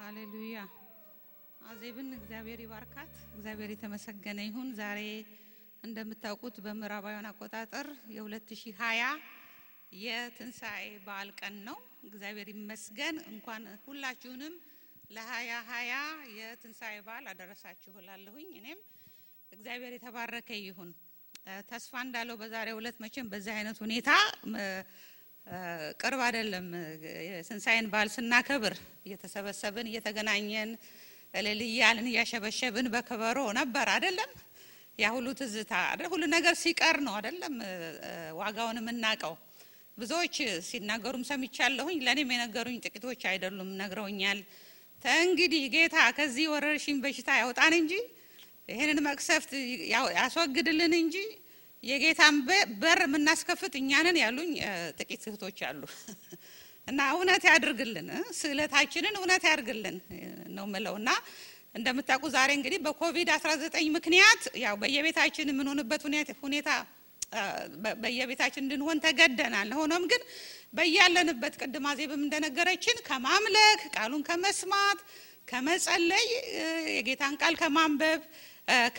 ሃሌሉያ አዜብን እግዚአብሔር ይባርካት እግዚአብሔር የተመሰገነ ይሁን። ዛሬ እንደምታውቁት በምዕራባውያን አቆጣጠር የ2020 የትንሳኤ በዓል ቀን ነው። እግዚአብሔር ይመስገን። እንኳን ሁላችሁንም ለ2020 የትንሳኤ በዓል አደረሳችሁ እላለሁኝ። እኔም እግዚአብሔር የተባረከ ይሁን። ተስፋ እንዳለው በዛሬው ዕለት መቼም በዚህ አይነት ሁኔታ ቅርብ አይደለም የትንሳኤን በዓል ስናከብር እየተሰበሰብን እየተገናኘን ለልያልን ያሸበሸብን በከበሮ ነበር አይደለም። ያ ሁሉ ትዝታ ሁሉ ነገር ሲቀር ነው አይደለም ዋጋውን የምናቀው። ብዙዎች ሲናገሩም ሰምቻለሁኝ። ለኔም የነገሩኝ ጥቂቶች አይደሉም ነግረውኛል። እንግዲህ ጌታ ከዚህ ወረርሽኝ በሽታ ያውጣን እንጂ ይሄንን መቅሰፍት ያስወግድልን እንጂ የጌታን በር ምናስከፍት እኛንን ያሉኝ ጥቂት እህቶች አሉ። እና እውነት ያድርግልን ስለታችንን እውነት ያድርግልን ነው መለውና እንደምታውቁ ዛሬ እንግዲህ በኮቪድ-19 ምክንያት ያው በየቤታችን ምን ሆነበት ሁኔታ በየቤታችን እንድንሆን ተገደናል። ሆኖም ግን በያለንበት ቅድም አዜብም እንደነገረችን ከማምለክ ቃሉን ከመስማት ከመጸለይ የጌታን ቃል ከማንበብ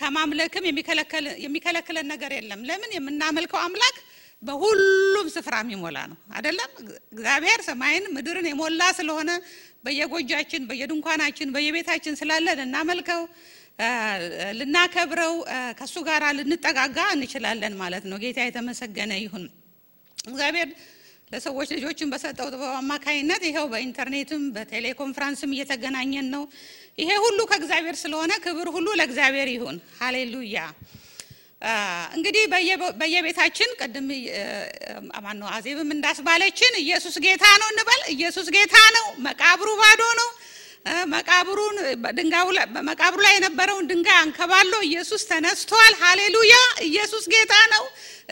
ከማምለክም የሚከለክለን ነገር የለም። ለምን የምናመልከው አምላክ በሁሉም ስፍራ የሚሞላ ነው አይደለም። እግዚአብሔር ሰማይን ምድርን የሞላ ስለሆነ በየጎጃችን በየድንኳናችን በየቤታችን ስላለን እናመልከው ልናከብረው ከሱ ጋር ልንጠጋጋ እንችላለን ማለት ነው። ጌታ የተመሰገነ ይሁን። እግዚአብሔር ለሰዎች ልጆችን በሰጠው ጥበብ አማካይነት ይሄው በኢንተርኔትም በቴሌኮንፈረንስም እየተገናኘን ነው። ይሄ ሁሉ ከእግዚአብሔር ስለሆነ ክብር ሁሉ ለእግዚአብሔር ይሁን። ሃሌሉያ። እንግዲህ በየቤታችን ቀደም ማነው አዜብም እንዳስባለችን ኢየሱስ ጌታ ነው እንበል። ኢየሱስ ጌታ ነው። መቃብሩ ባዶ ነው። መቃብሩ ላይ የነበረውን ድንጋይ አንከባሎ ኢየሱስ ተነስቷል። ሃሌሉያ። ኢየሱስ ጌታ ነው።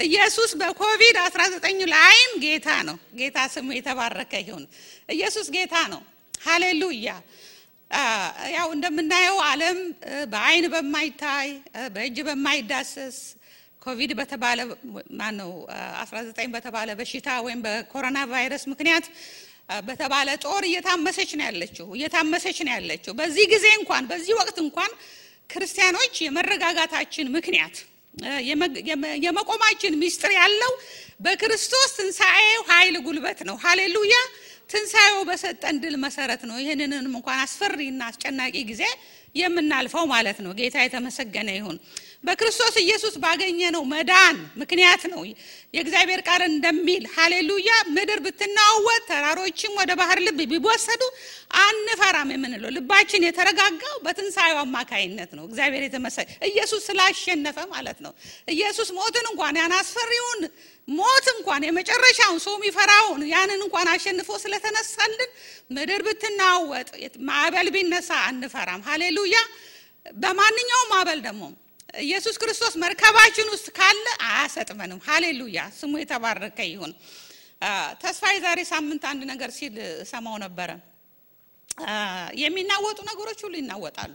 ኢየሱስ በኮቪድ-19 ላይም ጌታ ነው። ጌታ ስሙ የተባረከ ይሁን። ኢየሱስ ጌታ ነው። ሃሌሉያ። ያው እንደምናየው ዓለም በአይን በማይታይ በእጅ በማይዳሰስ ኮቪድ በተባለ 19 በተባለ በሽታ ወይም በኮሮና ቫይረስ ምክንያት በተባለ ጦር እየታመሰች ነው ያለችው። በዚህ ጊዜ እንኳን በዚህ ወቅት እንኳን ክርስቲያኖች የመረጋጋታችን ምክንያት የመቆማችን ሚስጥር ያለው በክርስቶስ ትንሳኤው ኃይል ጉልበት ነው። ሃሌሉያ። ትንሳኤው በሰጠን ድል መሰረት ነው ይሄንንም እንኳን አስፈሪና አስጨናቂ ጊዜ የምናልፈው ማለት ነው። ጌታ የተመሰገነ ይሁን። በክርስቶስ ኢየሱስ ባገኘነው መዳን ምክንያት ነው የእግዚአብሔር ቃል እንደሚል ሃሌሉያ ምድር ብትናወጥ ተራሮችም ወደ ባህር ልብ ቢወሰዱ አንፈራም የምንለው ልባችን የተረጋጋው በትንሳኤው አማካይነት ነው። እግዚአብሔር የተመሰገነ ኢየሱስ ስላሸነፈ ማለት ነው። ኢየሱስ ሞትን እንኳን ያን አስፈሪውን ሞት እንኳን የመጨረሻውን ሰው የሚፈራውን ያንን እንኳን አሸንፎ ስለተነሳልን ምድር ብትናወጥ ማዕበል ቢነሳ አንፈራም። ሃሌሉያ። በማንኛውም ማዕበል ደግሞ ኢየሱስ ክርስቶስ መርከባችን ውስጥ ካለ አያሰጥመንም። ሃሌሉያ። ስሙ የተባረከ ይሁን። ተስፋዬ ዛሬ ሳምንት አንድ ነገር ሲል ሰማው ነበር። የሚናወጡ ነገሮች ሁሉ ይናወጣሉ።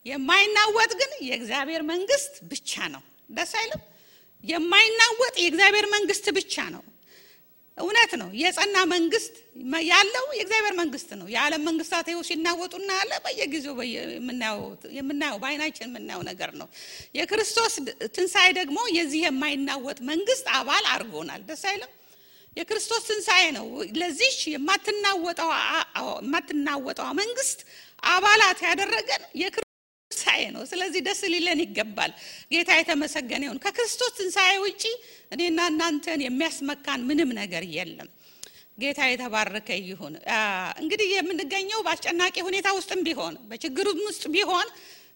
የማይናወጥ ግን የእግዚአብሔር መንግስት ብቻ ነው። ደስ አይልም? የማይናወጥ የእግዚአብሔር መንግስት ብቻ ነው። እውነት ነው። የጸና መንግስት ያለው የእግዚአብሔር መንግስት ነው። የዓለም መንግስታት ይኸው ሲናወጡና ያለ በየጊዜው የምናየው በአይናችን የምናየው ነገር ነው። የክርስቶስ ትንሳኤ ደግሞ የዚህ የማይናወጥ መንግስት አባል አድርጎናል። ደስ አይልም? የክርስቶስ ትንሳኤ ነው ለዚህ የማትናወጠው መንግስት አባላት ያደረገን ትንሳኤ ነው። ስለዚህ ደስ ሊለን ይገባል። ጌታ የተመሰገነ ይሁን። ከክርስቶስ ትንሳኤ ውጪ እኔና እናንተን የሚያስመካን ምንም ነገር የለም። ጌታ የተባረከ ይሁን። እንግዲህ የምንገኘው በአስጨናቂ ሁኔታ ውስጥም ቢሆን በችግሩም ውስጥ ቢሆን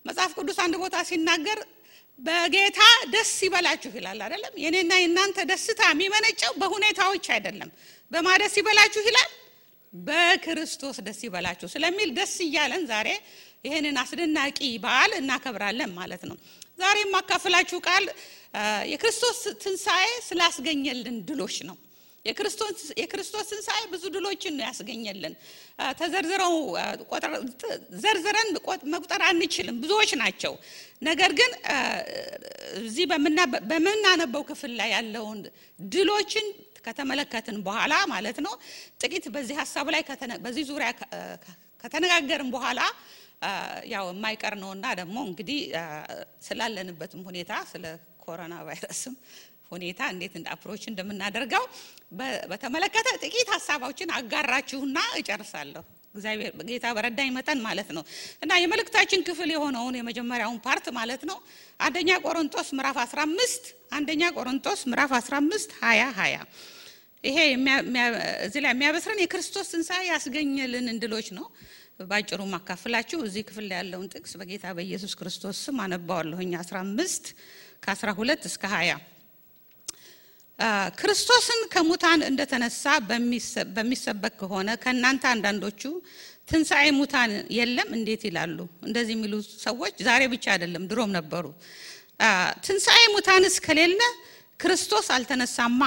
መጽሐፍ ቅዱስ አንድ ቦታ ሲናገር በጌታ ደስ ይበላችሁ ይላል አይደለም? የኔና የናንተ ደስታ የሚመነጨው በሁኔታዎች አይደለም። በማደስ ይበላችሁ ይላል? በክርስቶስ ደስ ይበላችሁ ስለሚል ደስ ይያለን ዛሬ ይሄንን አስደናቂ በዓል እናከብራለን ማለት ነው። ዛሬ ማካፈላችሁ ቃል የክርስቶስ ትንሳኤ ስላስገኘልን ድሎች ነው። የክርስቶስ ትንሳኤ ብዙ ድሎችን ነው ያስገኘልን። ዘርዝረን መቁጠር አንችልም፣ ብዙዎች ናቸው። ነገር ግን እዚህ በመናነበው ክፍል ላይ ያለውን ድሎችን ከተመለከትን በኋላ ማለት ነው ጥቂት በዚህ ሐሳብ ላይ በዚህ ዙሪያ ከተነጋገርን በኋላ ያው የማይቀር ነውና ደግሞ እንግዲህ ስላለንበትም ሁኔታ ስለ ኮሮና ቫይረስም ሁኔታ እንዴት አፕሮች እንደምናደርገው በተመለከተ ጥቂት ሐሳቦችን አጋራችሁና እጨርሳለሁ። እግዚአብሔር ጌታ በረዳኝ መጠን ማለት ነው። እና የመልእክታችን ክፍል የሆነውን የመጀመሪያውን ፓርት ማለት ነው አንደኛ ቆሮንቶስ ምዕራፍ 15 20 ይሄ እዚህ ላይ የሚያበስረን የክርስቶስ ትንሣኤ ያስገኘልን እንድሎች ነው። ባጭሩ ማካፈላችሁ እዚህ ክፍል ላይ ያለውን ጥቅስ በጌታ በኢየሱስ ክርስቶስ ስም አነባዋለሁኝ 15 ከ12 እስከ 20 ክርስቶስን ከሙታን እንደተነሳ በሚሰበክ ከሆነ ከናንተ አንዳንዶቹ ትንሣኤ ሙታን የለም እንዴት ይላሉ? እንደዚህ የሚሉ ሰዎች ዛሬ ብቻ አይደለም ድሮም ነበሩ። ትንሣኤ ሙታንስ ከሌለ ክርስቶስ አልተነሳማ።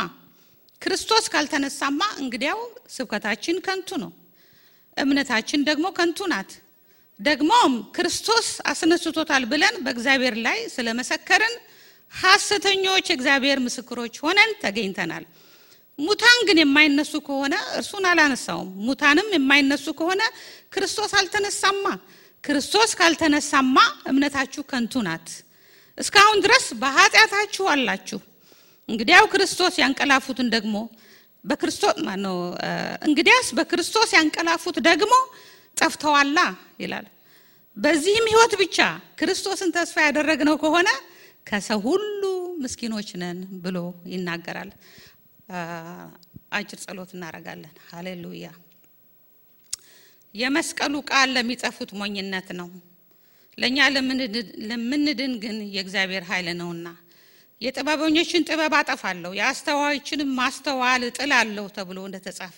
ክርስቶስ ካልተነሳማ እንግዲያው ስብከታችን ከንቱ ነው፣ እምነታችን ደግሞ ከንቱ ናት። ደግሞም ክርስቶስ አስነስቶታል ብለን በእግዚአብሔር ላይ ስለመሰከርን ሐሰተኞች እግዚአብሔር ምስክሮች ሆነን ተገኝተናል። ሙታን ግን የማይነሱ ከሆነ እርሱን አላነሳውም። ሙታንም የማይነሱ ከሆነ ክርስቶስ አልተነሳማ። ክርስቶስ ካልተነሳማ እምነታችሁ ከንቱ ናት፣ እስካሁን ድረስ በኃጢአታችሁ አላችሁ። እንግዲያው ክርስቶስ ያንቀላፉትን ደግሞ እንግዲያስ በክርስቶስ ያንቀላፉት ደግሞ ጠፍተዋላ ይላል። በዚህም ሕይወት ብቻ ክርስቶስን ተስፋ ያደረግነው ከሆነ ከሰው ሁሉ ምስኪኖች ነን ብሎ ይናገራል። አጭር ጸሎት እናደርጋለን። ሃሌሉያ። የመስቀሉ ቃል ለሚጠፉት ሞኝነት ነው፣ ለኛ ለምንድን ግን የእግዚአብሔር ኃይል ነውና። የጥበበኞችን ጥበብ አጠፋለሁ፣ የአስተዋዮችንም ማስተዋል እጥላለሁ ተብሎ እንደተጻፈ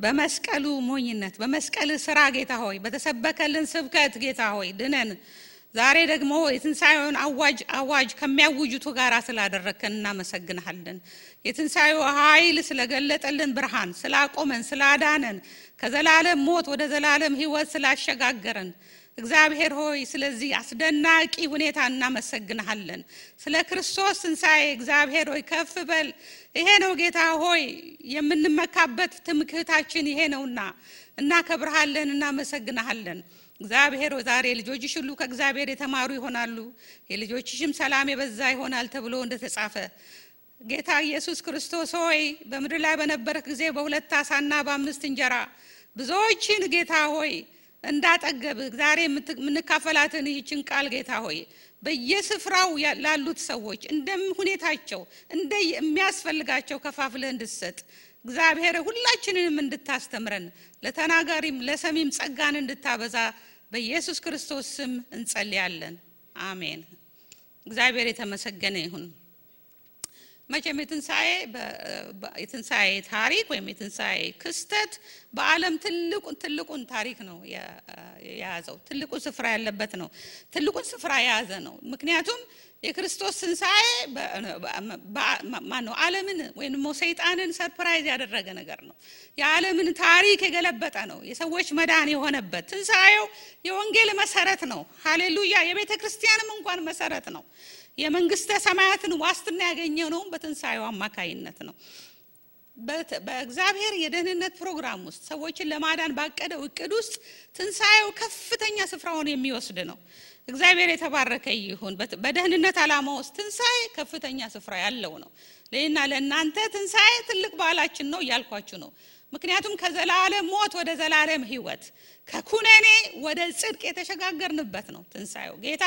በመስቀሉ ሞኝነት በመስቀል ስራ ጌታ ሆይ በተሰበከልን ስብከት ጌታ ሆይ ድነን ዛሬ ደግሞ የትንሣኤውን አዋጅ ከሚያውጁቱ ጋር ስላደረከን እናመሰግንሃለን። የትንሣኤው ኃይል ስለገለጠልን ብርሃን ስላቆመን ስላዳነን ከዘላለም ሞት ወደ ዘላለም ሕይወት ስላሸጋገረን እግዚአብሔር ሆይ ስለዚህ አስደናቂ ሁኔታ እናመሰግንሃለን። ስለ ክርስቶስ ትንሣኤ እግዚአብሔር ሆይ ከፍ በል። ይሄ ነው ጌታ ሆይ የምንመካበት ትምክህታችን ይሄ ነውና እናከብርሃለን፣ እናመሰግንሃለን። እግዚአብሔር ዛሬ ልጆችሽ ሁሉ ከእግዚአብሔር የተማሩ ይሆናሉ፣ የልጆችሽም ሰላም የበዛ ይሆናል ተብሎ እንደተጻፈ ጌታ ኢየሱስ ክርስቶስ ሆይ በምድር ላይ በነበረክ ጊዜ በ2 ዓሣና በ5 እንጀራ ብዙዎችን ጌታ ሆይ እንዳጠገብ ዛሬ የምንካፈላትን ይህችን ቃል ጌታ ሆይ በየስፍራው ላሉት ሰዎች እንደሁኔታቸው የሚያስፈልጋቸው ከፋፍለህ እንድትሰጥ እግዚአብሔር ሁላችንንም እንድታስተምረን ለተናጋሪም ለሰሚም ጸጋን እንድታበዛ በኢየሱስ ክርስቶስ ስም እንጸልያለን። አሜን። እግዚአብሔር የተመሰገነ ይሁን። መቼም የትንሣኤ ታሪክ ወይም የትንሣኤ ክስተት በዓለም ትልቁን ታሪክ ነው የያዘው፣ ትልቁን ስፍራ ያለበት ነው፣ ትልቁን ስፍራ የያዘ ነው። ምክንያቱም የክርስቶስ ትንሣኤ ዓለምን ወይም ሰይጣንን ሰርፕራይዝ ያደረገ ነገር ነው። የዓለምን ታሪክ የገለበጠ ነው። የሰዎች መዳን የሆነበት ትንሣኤው የወንጌል መሰረት ነው። ሃሌሉያ። የቤተ ክርስቲያንም እንኳን መሰረት ነው። የመንግስተ ሰማያትን ዋስትና ያገኘው ነው በትንሣኤው አማካይነት ነው። በእግዚአብሔር የደህንነት ፕሮግራም ውስጥ ሰዎችን ለማዳን ባቀደው እቅድ ውስጥ ትንሣኤው ከፍተኛ ስፍራውን የሚወስድ ነው። እግዚአብሔር የተባረከ ይሁን። በደህንነት ዓላማ ውስጥ ትንሣኤ ከፍተኛ ስፍራ ያለው ነው። ለእና ለእናንተ ትንሣኤ ትልቅ በዓላችን ነው እያልኳችሁ ነው። ምክንያቱም ከዘላለም ሞት ወደ ዘላለም ሕይወት ከኩነኔ ወደ ጽድቅ የተሸጋገርንበት ነው ትንሣኤው። ጌታ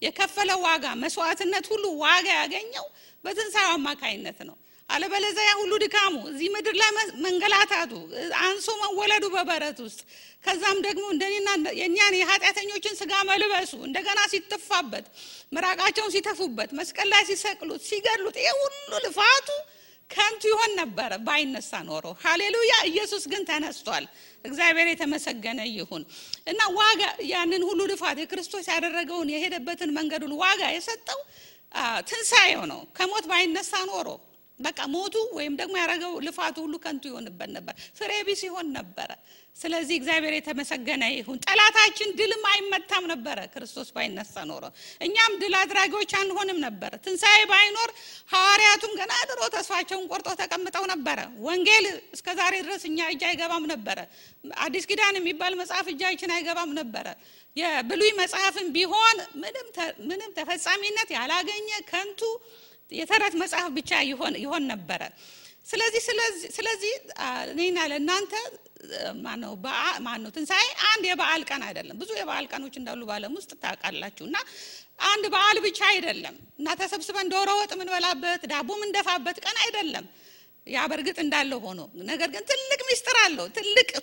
የከፈለው ዋጋ መስዋዕትነት ሁሉ ዋጋ ያገኘው በትንሣኤው አማካይነት ነው። አለበለዚያ ሁሉ ድካሙ እዚህ ምድር ላይ መንገላታቱ አንሶ መወለዱ በበረት ውስጥ ከዛም ደግሞ እንደኔና የኛን የኃጢአተኞችን ስጋ መልበሱ እንደገና ሲተፋበት ምራቃቸውን ሲተፉበት መስቀል ላይ ሲሰቅሉት ሲገድሉት ይሄ ሁሉ ልፋቱ ከንቱ ይሆን ነበር ባይነሳ ኖሮ። ሃሌሉያ። ኢየሱስ ግን ተነስቷል። እግዚአብሔር የተመሰገነ ይሁን። እና ዋጋ ያንን ሁሉ ልፋት የክርስቶስ ያደረገውን የሄደበትን መንገዱን ዋጋ የሰጠው ትንሣኤው ነው። ከሞት ባይነሳ ኖሮ በቃ ሞቱ ወይም ደግሞ ያረጋው ልፋቱ ሁሉ ከንቱ ይሆንበት ነበር፣ ፍሬ ቢስ ይሆን ነበር። ስለዚህ እግዚአብሔር የተመሰገነ ይሁን። ጠላታችን ድልም አይመታም ነበር ክርስቶስ ባይነሳ ኖሮ፣ እኛም ድል አድራጊዎች አንሆንም ነበር። ትንሣኤ ባይኖር ሐዋርያቱም ገና ድሮ ተስፋቸውን ቆርጠው ተቀምጠው ነበር። ወንጌል እስከዛሬ ድረስ እኛ እጅ አይገባም ነበር። አዲስ ኪዳን የሚባል መጽሐፍ እጃችን አይገባም ነበር። የብሉይ መጽሐፍም ቢሆን ምንም ተፈጻሚነት ያላገኘ ከንቱ የተረት መጽሐፍ ብቻ ይሆን ነበር። ስለዚህ እኔና ለእናንተ ማነው ትንሣኤ አንድ የበዓል ቀን አይደለም። ብዙ የበዓል ቀኖች እንዳሉ በዓለም ውስጥ ታውቃላችሁና አንድ በዓል ብቻ አይደለም እና ተሰብስበን ዶሮ ወጥ ምን በላበት ዳቦ ምን ደፋበት ቀን አይደለም። ያ በርግጥ እንዳለ ሆኖ ነገር ግን ትልቅ ምስጢር አለው።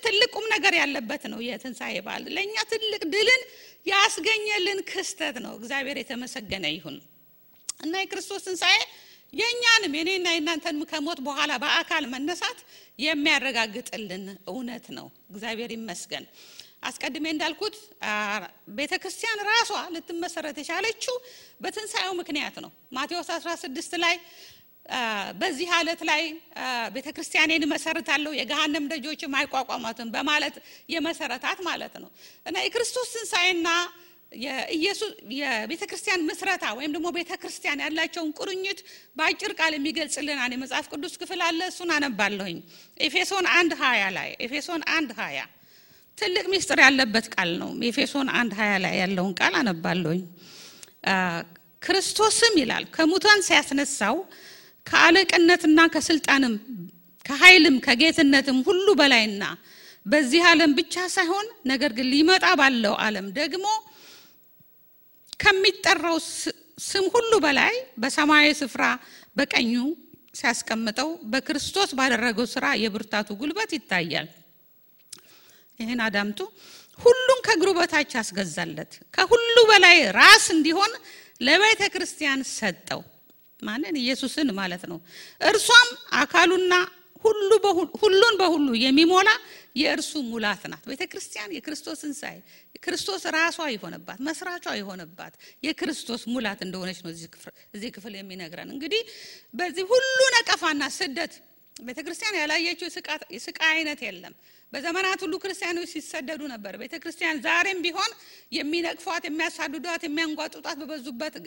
ትልቅ ቁም ነገር ያለበት ነው የትንሣኤ በዓል። ለኛ ትልቅ ድልን ያስገኘልን ክስተት ነው። እግዚአብሔር የተመሰገነ ይሁን እና የክርስቶስ ትንሣኤ የኛንም የኔና የናንተን ከሞት በኋላ በአካል መነሳት የሚያረጋግጥልን እውነት ነው። እግዚአብሔር ይመስገን። አስቀድሜ እንዳልኩት ቤተክርስቲያን ራሷ ልትመሰረት የቻለችው በትንሣኤው ምክንያት ነው። ማቴዎስ 16 ላይ በዚህ ዓለት ላይ ቤተክርስቲያኔን መሰረታለሁ የገሃነም ደጆችም አይቋቋሟትም በማለት የመሰረታት ማለት ነው እና የክርስቶስ ትንሣኤና የኢየሱስ የቤተክርስቲያን መስራታ ወይም ደግሞ ቤተክርስቲያን ያላቸውን ቁርኝት በአጭር ቃል የሚገልጽልን አንድ የመጽሐፍ ቅዱስ ክፍል አለ። እሱን አነባለሁኝ። ኤፌሶን 1:20 ላይ ኤፌሶን 1:20 ትልቅ ምስጢር ያለበት ቃል ነው። ኤፌሶን 1:20 ላይ ያለውን ቃል አነባለሁኝ። ክርስቶስም ይላል ከሙታን ሲያስነሳው ከአለቅነትና ከስልጣንም ከኃይልም ከጌትነትም ሁሉ በላይና በዚህ ዓለም ብቻ ሳይሆን ነገር ግን ሊመጣ ባለው ዓለም ደግሞ ከሚጠራው ስም ሁሉ በላይ በሰማያዊ ስፍራ በቀኙ ሲያስቀምጠው በክርስቶስ ባደረገው ሥራ የብርታቱ ጉልበት ይታያል። ይሄን አዳምጡ። ሁሉን ከእግሩ በታች አስገዛለት፣ ከሁሉ በላይ ራስ እንዲሆን ለቤተ ክርስቲያን ሰጠው። ማንን? ኢየሱስን ማለት ነው። እርሷም አካሉና ሁሉን በሁሉ የሚሞላ የእርሱ ሙላት ናት። ቤተክርስቲያን የክርስቶስ ትንሣኤ ክርስቶስ ራሷ የሆነባት መስራቿ የሆነባት የክርስቶስ ሙላት እንደሆነች ነው እዚህ ክፍል የሚነግረን። እንግዲህ በዚህ ሁሉ ነቀፋና ስደት ቤተክርስቲያን ያላየችው የስቃይ አይነት የለም። በዘመናት ሁሉ ክርስቲያኖች ሲሰደዱ ነበር። ቤተክርስቲያን ዛሬም ቢሆን የሚነቅፏት የሚያሳድዷት የሚያንጓጡጣት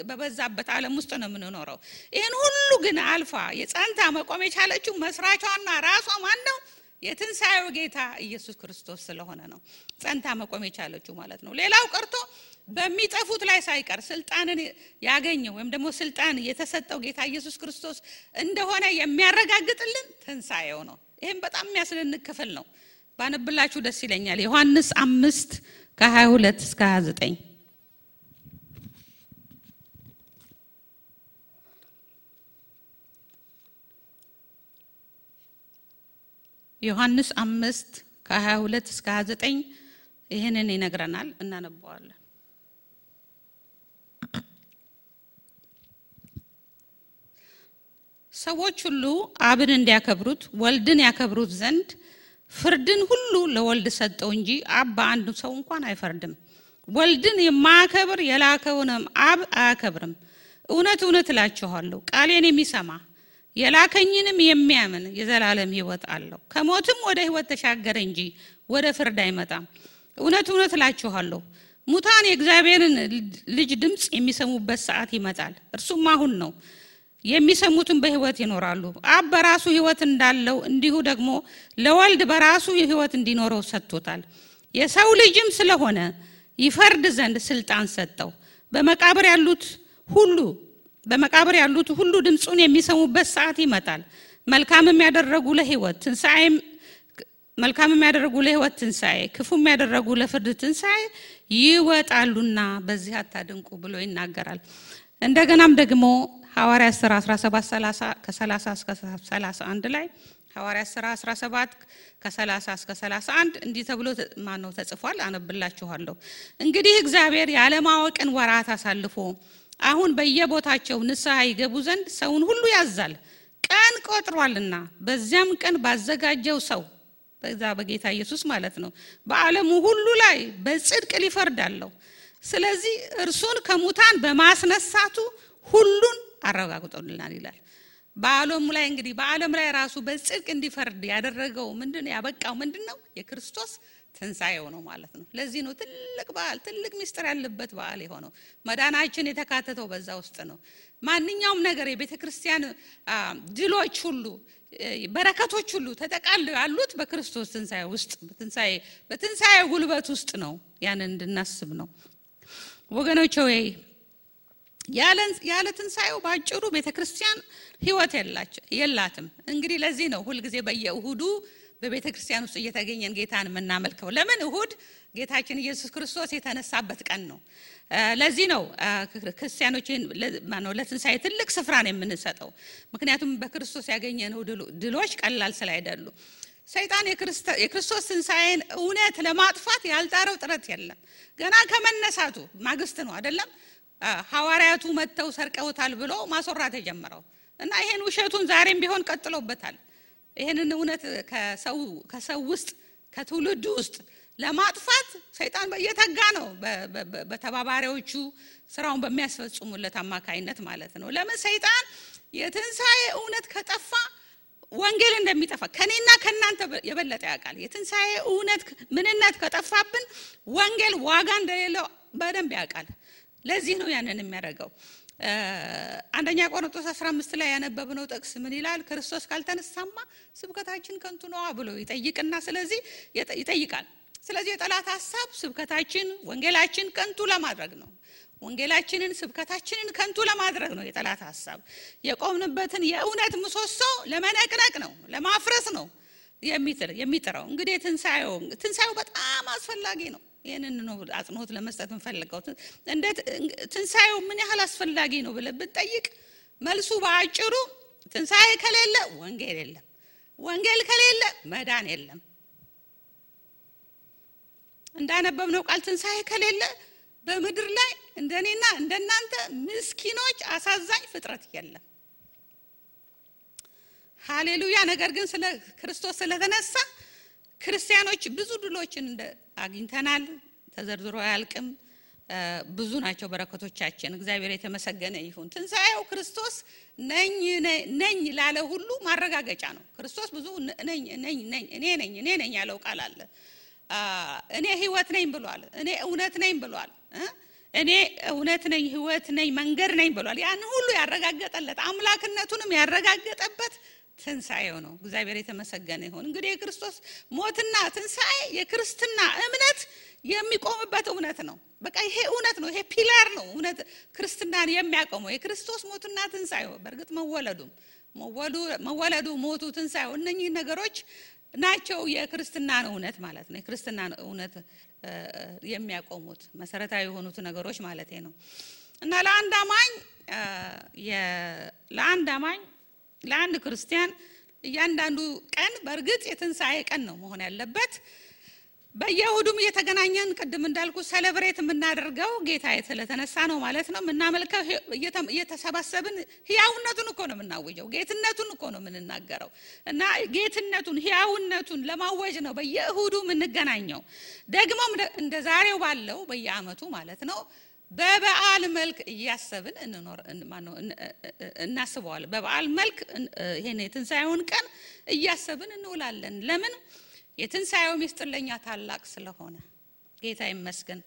በበዛበት ዓለም ውስጥ ነው የምንኖረው። ይሄን ሁሉ ግን አልፋ የጸንታ መቆም የቻለችው መስራቿና ራሷ ማን ነው? የትንሣኤው ጌታ ኢየሱስ ክርስቶስ ስለሆነ ነው ጸንታ መቆም የቻለችው ማለት ነው። ሌላው ቀርቶ በሚጠፉት ላይ ሳይቀር ስልጣንን ያገኘው ወይም ደግሞ ስልጣን የተሰጠው ጌታ ኢየሱስ ክርስቶስ እንደሆነ የሚያረጋግጥልን ትንሣኤው ነው። ይሄም በጣም የሚያስደንቅ ክፍል ነው። ባነብላችሁ ደስ ይለኛል። ዮሐንስ 5:22 እስከ 29 ዮሐንስ 5:22 እስከ 29 ይሄንን ይነግረናል። እናነባዋለን። ሰዎች ሁሉ አብን እንዲያከብሩት ወልድን ያከብሩት ዘንድ ፍርድን ሁሉ ለወልድ ሰጠው እንጂ አብ በአንድ ሰው እንኳን አይፈርድም። ወልድን የማያከብር የላከውንም አብ አያከብርም። እውነት እውነት እላችኋለሁ ቃሌን የሚሰማ የላከኝንም የሚያምን የዘላለም ሕይወት አለው፣ ከሞትም ወደ ሕይወት ተሻገረ እንጂ ወደ ፍርድ አይመጣም። እውነት እውነት እላችኋለሁ ሙታን የእግዚአብሔርን ልጅ ድምጽ የሚሰሙበት ሰዓት ይመጣል፣ እርሱም አሁን ነው። የሚሰሙትን በሕይወት ይኖራሉ። አብ በራሱ ሕይወት እንዳለው እንዲሁ ደግሞ ለወልድ በራሱ ሕይወት እንዲኖረው ሰጥቶታል። የሰው ልጅም ስለሆነ ይፈርድ ዘንድ ስልጣን ሰጠው። በመቃብር ያሉት ሁሉ ድምጹን የሚሰሙበት ሰዓት ይመጣል። መልካምም ያደረጉ ለሕይወት ትንሣኤ ክፉም ያደረጉ ለፍርድ ትንሣኤ ይወጣሉና በዚህ አታድንቁ ብሎ ይናገራል። እንደገናም ደግሞ ሐዋርያት ሥራ 17:30 ከ30 እስከ 31 ላይ ሐዋርያት ሥራ 17 ከ30 እስከ 31 እንዲህ ተብሎ ተጽፏል። አነብላችኋለሁ። እንግዲህ እግዚአብሔር ያለማወቅን ወራት አሳልፎ አሁን በየቦታቸው ንስሐ ይገቡ ዘንድ ሰውን ሁሉ ያዛል። ቀን ቆጥሯልና በዚያም ቀን ባዘጋጀው ሰው በዛ በጌታ ኢየሱስ ማለት ነው በዓለሙ ሁሉ ላይ በጽድቅ ሊፈርዳለው። ስለዚህ እርሱን ከሙታን በማስነሳቱ ሁሉን አረጋግጦልናል ይላል። በዓለም ላይ እንግዲህ በዓለም ላይ ራሱ በጽድቅ እንዲፈርድ ያደረገው ምንድነው? ያበቃው ምንድነው? የክርስቶስ ትንሣኤው ነው ማለት ነው። ለዚህ ነው ትልቅ በዓል፣ ትልቅ ምስጢር ያለበት በዓል የሆነው። መዳናችን የተካተተው በዛ ውስጥ ነው። ማንኛውም ነገር የቤተ ክርስቲያን ድሎች ሁሉ በረከቶች ሁሉ ተጠቃለው ያሉት በክርስቶስ ትንሣኤ ውስጥ በትንሣኤ ጉልበት ውስጥ ነው። ያንን እንድናስብ ነው ወገኖቼ። ወይ ያለ ትንሣኤው ባጭሩ ቤተ ክርስቲያን ህይወት የላትም። እንግዲህ ለዚህ ነው ሁሉ ጊዜ በየእሁዱ በቤተ ክርስቲያን ውስጥ እየተገኘን ጌታን የምናመልከው። ለምን? እሁድ ጌታችን ኢየሱስ ክርስቶስ የተነሳበት ቀን ነው። ለዚህ ነው ክርስቲያኖችን ለትንሣኤ ትልቅ ስፍራ ነው የምንሰጠው። ምክንያቱም በክርስቶስ ያገኘነው ድሎች ቀላል ስላይደሉ። ሰይጣን የክርስቶስ ትንሣኤን እውነት ለማጥፋት ያልጣረው ጥረት የለም። ገና ከመነሳቱ ማግስት ነው አይደለም ሐዋርያቱ መተው ሰርቀውታል ብሎ ማስወራት የጀመረው እና ይሄን ውሸቱን ዛሬም ቢሆን ቀጥሎበታል። ይሄንን እውነት ከሰው ውስጥ ከትውልድ ውስጥ ለማጥፋት ሰይጣን በየተጋ ነው በተባባሪዎቹ ስራውን በሚያስፈጽሙለት አማካይነት ማለት ነው። ለምን? ሰይጣን የትንሣኤ እውነት ከጠፋ ወንጌል እንደሚጠፋ ከኔና ከናንተ የበለጠ ያውቃል። የትንሣኤ እውነት ምንነት ከጠፋብን ወንጌል ዋጋ እንደሌለው በደንብ ያውቃል። ለዚህ ነው ያንን የሚያደርገው። አንደኛ ቆሮንቶስ 15 ላይ ያነበብነው ጥቅስ ምን ይላል? ክርስቶስ ካልተነሳማ ስብከታችን ከንቱ ነው ብሎ ይጠይቅና ስለዚህ ይጠይቃል። ስለዚህ የጠላት ሐሳብ ስብከታችን ወንጌላችን ከንቱ ለማድረግ ነው። ወንጌላችንን ስብከታችንን ከንቱ ለማድረግ ነው የጠላት ሐሳብ። የቆምንበትን የእውነት ምሰሶ ለመነቅነቅ ነው፣ ለማፍረስ ነው የሚጥረው። እንግዲህ ትንሣኤው በጣም አስፈላጊ ነው። ይሄንን ነው አጽንኦት ለመስጠት እንፈልገው። ትንሣኤው ምን ያህል አስፈላጊ ነው ብለን ብንጠይቅ መልሱ በአጭሩ ትንሣኤ ከሌለ ወንጌል የለም፣ ወንጌል ከሌለ መዳን የለም። እንዳነበብነው ቃል ትንሣኤ ከሌለ በምድር ላይ እንደኔና እንደናንተ ምስኪኖች አሳዛኝ ፍጥረት የለም። ሃሌሉያ። ነገር ግን ስለ ክርስቶስ ስለተነሳ ክርስቲያኖች ብዙ ድሎችን አግኝተናል። ተዘርዝሮ አያልቅም። ብዙ ናቸው በረከቶቻችን። እግዚአብሔር የተመሰገነ ይሁን። ትንሣኤው ክርስቶስ ነኝ ላለ ሁሉ ማረጋገጫ ነው። ክርስቶስ ብዙ እኔ ነኝ ያለው ቃል አለ። እኔ ህይወት ነኝ ብሏል። እኔ እውነት ነኝ ብሏል። እኔ እውነት ነኝ፣ ህይወት ነኝ፣ መንገድ ነኝ ብሏል። ያን ሁሉ ያረጋገጠለት አምላክነቱንም ያረጋገጠበት ትንሣኤው ነው። እግዚአብሔር የተመሰገነ ይሁን። እንግዲህ የክርስቶስ ሞትና ትንሣኤ የክርስትና እምነት የሚቆምበት እውነት ነው። በቃ ይሄ እውነት ነው። ይሄ ፒላር ነው። እውነት ክርስትናን የሚያቆመው የክርስቶስ ሞትና ትንሣኤው። በእርግጥ መወለዱ፣ ሞቱ፣ ትንሣኤው እነኚህ ነገሮች ናቸው የክርስትናን እውነት ማለት ነው። የክርስትናን እውነት የሚያቆሙት መሰረታዊ የሆኑት ነገሮች ማለት ነው። እና ለአንድ ክርስቲያን እያንዳንዱ ቀን በእርግጥ የትንሣኤ ቀን ነው መሆን ያለበት። በየእሁዱም እየተገናኘን ቅድም እንዳልኩ ሴሌብሬት የምናደርገው ጌታ ስለተነሳ ነው ማለት ነው። የምናመልከው እየተሰባሰብን ህያውነቱን እኮ ነው የምናወጀው፣ ጌትነቱን እኮ ነው የምንናገረው። እና ጌትነቱን ህያውነቱን ለማወጅ ነው በየእሁዱ የምንገናኘው። ደግሞም እንደ ዛሬው ባለው በየአመቱ ማለት ነው በበዓል መልክ እያሰብን እናስበዋለን። በበዓል መልክ ይሄን የትንሣኤውን ቀን እያሰብን እንውላለን። ለምን? የትንሣኤው ምስጢር ለኛ ታላቅ ስለሆነ ጌታ ይመስገን።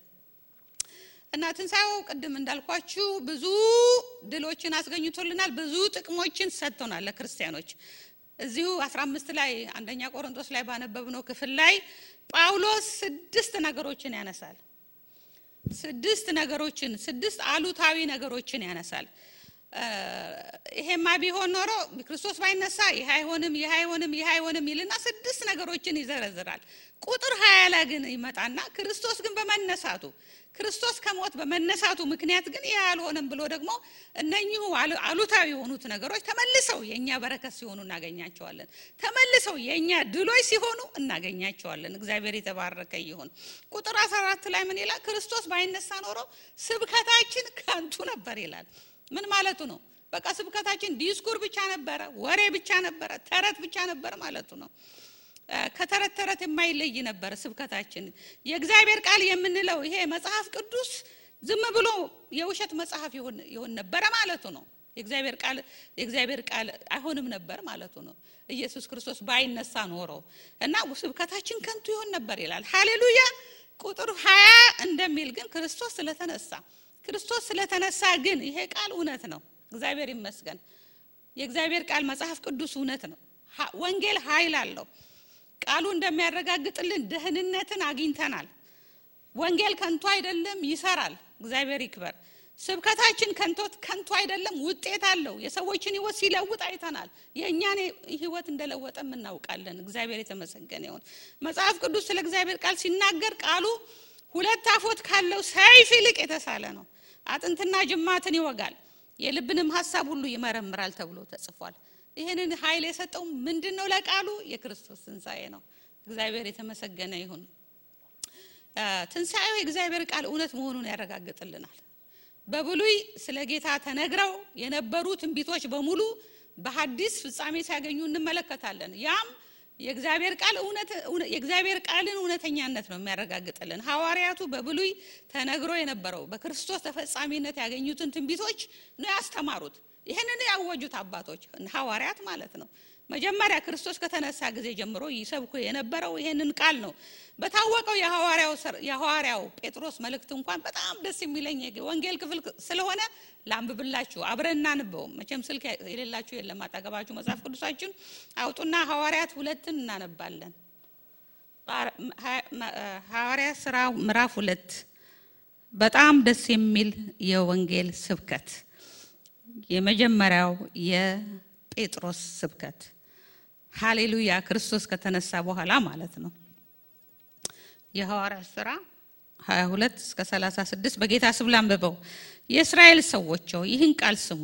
እና ትንሣኤው ቅድም እንዳልኳችሁ ብዙ ድሎችን አስገኝቶልናል፣ ብዙ ጥቅሞችን ሰጥቶናል ለክርስቲያኖች። እዚሁ 15 ላይ አንደኛ ቆሮንቶስ ላይ ባነበብነው ክፍል ላይ ጳውሎስ 6 ነገሮችን ያነሳል። 6 አሉታዊ ነገሮችን ያነሳል። ይሄማ ቢሆን ኖሮ ክርስቶስ ባይነሳ ይሄ አይሆንም ይልና 6 ነገሮችን ይዘረዝራል። ቁጥር 20 ላይ ግን ይመጣና ክርስቶስ ግን በመነሳቱ ክርስቶስ ከሞት በመነሳቱ ምክንያት ግን ይሄ አልሆነም ብሎ ደግሞ እነኚሁ አሉታዊ የሆኑት ነገሮች ተመልሰው የኛ በረከት ሲሆኑ እናገኛቸዋለን። ተመልሰው የኛ ድሎች ሲሆኑ እናገኛቸዋለን። እግዚአብሔር የተባረከ ይሁን። ቁጥር 14 ላይ ምን ይላል? ክርስቶስ ባይነሳ ኖሮ ስብከታችን ከንቱ ነበር ይላል። ምን ማለቱ ነው? በቃ ስብከታችን ዲስኩር ብቻ ነበረ፣ ወሬ ብቻ ነበረ፣ ተረት ብቻ ነበር ማለቱ ነው። ከተረት የማይለይ ነበር ስብከታችን። የእግዚአብሔር ቃል የምንለው ይሄ መጽሐፍ ቅዱስ ዝም ብሎ የውሸት መጽሐፍ ይሆን ነበር ማለቱ ነው። የእግዚአብሔር ቃል አይሆንም ነበር ማለቱ ነው። ኢየሱስ ክርስቶስ ባይነሳ ኖሮ እና ስብከታችን ከንቱ ይሆን ነበር ይላል። ሃሌሉያ። ቁጥር 20 እንደሚል ግን ክርስቶስ ስለተነሳ ግን ይሄ ቃል እውነት ነው። እግዚአብሔር ይመስገን። የእግዚአብሔር ቃል መጽሐፍ ቅዱስ እውነት ነው። ወንጌል ኃይል አለው። ቃሉ እንደሚያረጋግጥልን ደህንነትን አግኝተናል። ወንጌል ከንቱ አይደለም፣ ይሰራል። እግዚአብሔር ይክበር። ስብከታችን ከንቱ አይደለም፣ ውጤት አለው። የሰዎችን ህይወት ሲለውጥ አይተናል። የኛን ህይወት እንደለወጠም እናውቃለን። እግዚአብሔር የተመሰገነ ይሁን። መጽሐፍ ቅዱስ ስለ እግዚአብሔር ቃል ሲናገር ቃሉ ሁለት አፎት ካለው ሰይፍ ይልቅ የተሳለ ነው፣ አጥንትና ጅማትን ይወጋል፣ የልብንም ሐሳብ ሁሉ ይመረምራል ተብሎ ተጽፏል። ይሄንን ኃይል የሰጠው ምንድነው? ለቃሉ የክርስቶስ ትንሣኤ ነው። እግዚአብሔር የተመሰገነ ይሁን። ትንሣኤው የእግዚአብሔር ቃል እውነት መሆኑን ያረጋግጥልናል። በብሉይ ስለ ጌታ ተነግረው የነበሩ ትንቢቶች በሙሉ በሐዲስ ፍጻሜ ሲያገኙ እንመለከታለን። ያም የእግዚአብሔር ቃልን እውነተኛነት ነው የሚያረጋግጥልን። ሐዋርያቱ በብሉይ ተነግሮ የነበረው በክርስቶስ ተፈጻሚነት ያገኙትን ትንቢቶች ነው ያስተማሩት። ይሄንን ያወጁት አባቶች ሐዋርያት ማለት ነው። መጀመሪያ ክርስቶስ ከተነሳ ጊዜ ጀምሮ ይሰብኩ የነበረው ይሄንን ቃል ነው። በታወቀው የሐዋርያው ጴጥሮስ መልእክት እንኳን በጣም ደስ የሚለኝ ወንጌል ክፍል ስለሆነ ላንብብላችሁ፣ አብረን እናንበው። መቼም ስልክ የሌላችሁ የለም አጠገባችሁ። መጽሐፍ ቅዱሳችን አውጡና ሐዋርያት 2 እናነባለን። ሐዋርያት ሥራ ምዕራፍ 2 በጣም ደስ የሚል የወንጌል ስብከት፣ የመጀመሪያው የጴጥሮስ ስብከት። ሃሌሉያ። ክርስቶስ ከተነሳ በኋላ ማለት ነው። የሐዋርያት ሥራ 22-36 በጌታ ስም ላንብበው። የእስራኤል ሰዎች ይህን ቃል ስሙ።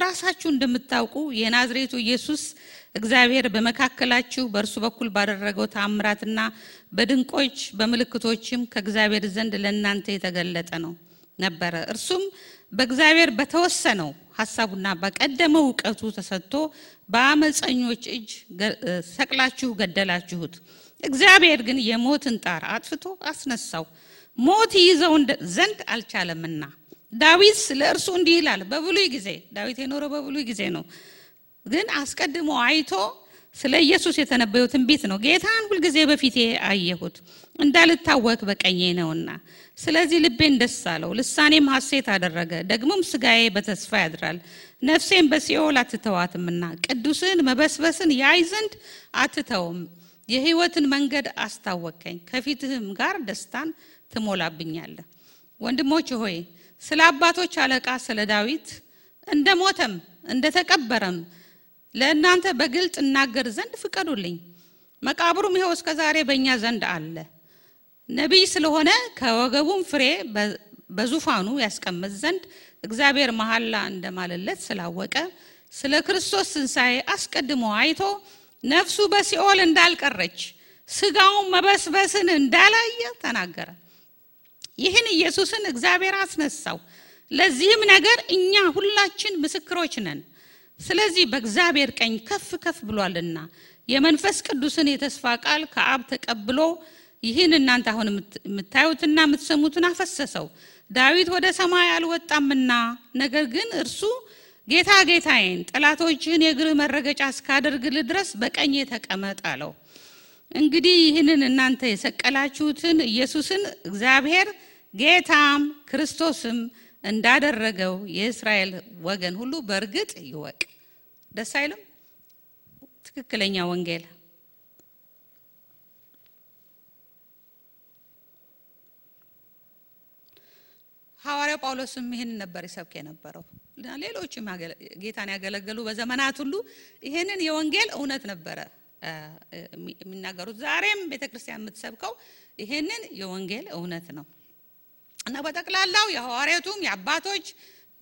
ራሳችሁ እንደምታውቁ የናዝሬቱ ኢየሱስ እግዚአብሔር በመካከላችሁ በእርሱ በኩል ባደረገው ተአምራትና በድንቆች በምልክቶችም ከእግዚአብሔር ዘንድ ለእናንተ የተገለጠ ነው ነበረ። እርሱም በእግዚአብሔር በተወሰነው ሐሳቡና በቀደመው ዕውቀቱ ተሰጥቶ በአመፀኞች እጅ ሰቅላችሁ ገደላችሁት። እግዚአብሔር ግን የሞትን ጣር አጥፍቶ አስነሳው፣ ሞት ይዘው ዘንድ አልቻለምና። ዳዊት ስለ እርሱ እንዲህ ይላል። በብሉይ ጊዜ ዳዊት የኖረው በብሉይ ጊዜ ነው፣ ግን አስቀድሞ አይቶ ስለ ኢየሱስ የተነበየው ትንቢት ነው። ጌታን ሁልጊዜ በፊቴ አየሁት፣ እንዳልታወክ በቀኜ ነውና። ስለዚህ ልቤን ደስ አለው፣ ልሳኔም ሐሴት አደረገ። ደግሞም ስጋዬ በተስፋ ያድራል፣ ነፍሴም በሲኦል አትተዋትምና። ቅዱስን መበስበስን ያይ ዘንድ አትተውም። የሕይወትን መንገድ አስታወቀኝ፣ ከፊትህም ጋር ደስታን ትሞላብኛለህ። ወንድሞች ሆይ ስለ አባቶች አለቃ ስለ ዳዊት እንደሞተም እንደተቀበረም ለእናንተ በግልጥ እናገር ዘንድ ፍቀዱልኝ። መቃብሩም ይኸው እስከ ዛሬ በእኛ ዘንድ አለ። ነቢይ ስለሆነ ከወገቡም ፍሬ በዙፋኑ ያስቀምጥ ዘንድ እግዚአብሔር መሐላ እንደማለለት ስላወቀ ስለ ክርስቶስ ትንሣኤ አስቀድሞ አይቶ ነፍሱ በሲኦል እንዳልቀረች ስጋውን መበስበስን እንዳላየ ተናገረ። ይህን ኢየሱስን እግዚአብሔር አስነሳው። ለዚህም ነገር እኛ ሁላችን ምስክሮች ነን። ስለዚህ በእግዚአብሔር ቀኝ ከፍ ከፍ ብሏልና የመንፈስ ቅዱስን የተስፋ ቃል ከአብ ተቀብሎ ይህን እናንተ አሁን የምታዩትና የምትሰሙትን አፈሰሰው። ዳዊት ወደ ሰማይ አልወጣምና፣ ነገር ግን እርሱ ጌታ ጌታዬን ጠላቶችህን የእግርህ መረገጫ እስካደርግልህ ድረስ በቀኜ ተቀመጥ አለው። እንግዲህ ይህንን እናንተ የሰቀላችሁትን ኢየሱስን እግዚአብሔር ጌታም ክርስቶስም እንዳደረገው የእስራኤል ወገን ሁሉ በእርግጥ ይወቅ። ደስ አይልም? ትክክለኛ ወንጌል። ሐዋርያው ጳውሎስም ይሄን ነበር ይሰብክ የነበረው። ሌሎችም ጌታን ያገለገሉ በዘመናት ሁሉ ይሄንን የወንጌል እውነት ነበረ የሚናገሩት። ዛሬም ቤተክርስቲያን የምትሰብከው ይሄንን የወንጌል እውነት ነው እና በጠቅላላው የሐዋርያቱም የአባቶች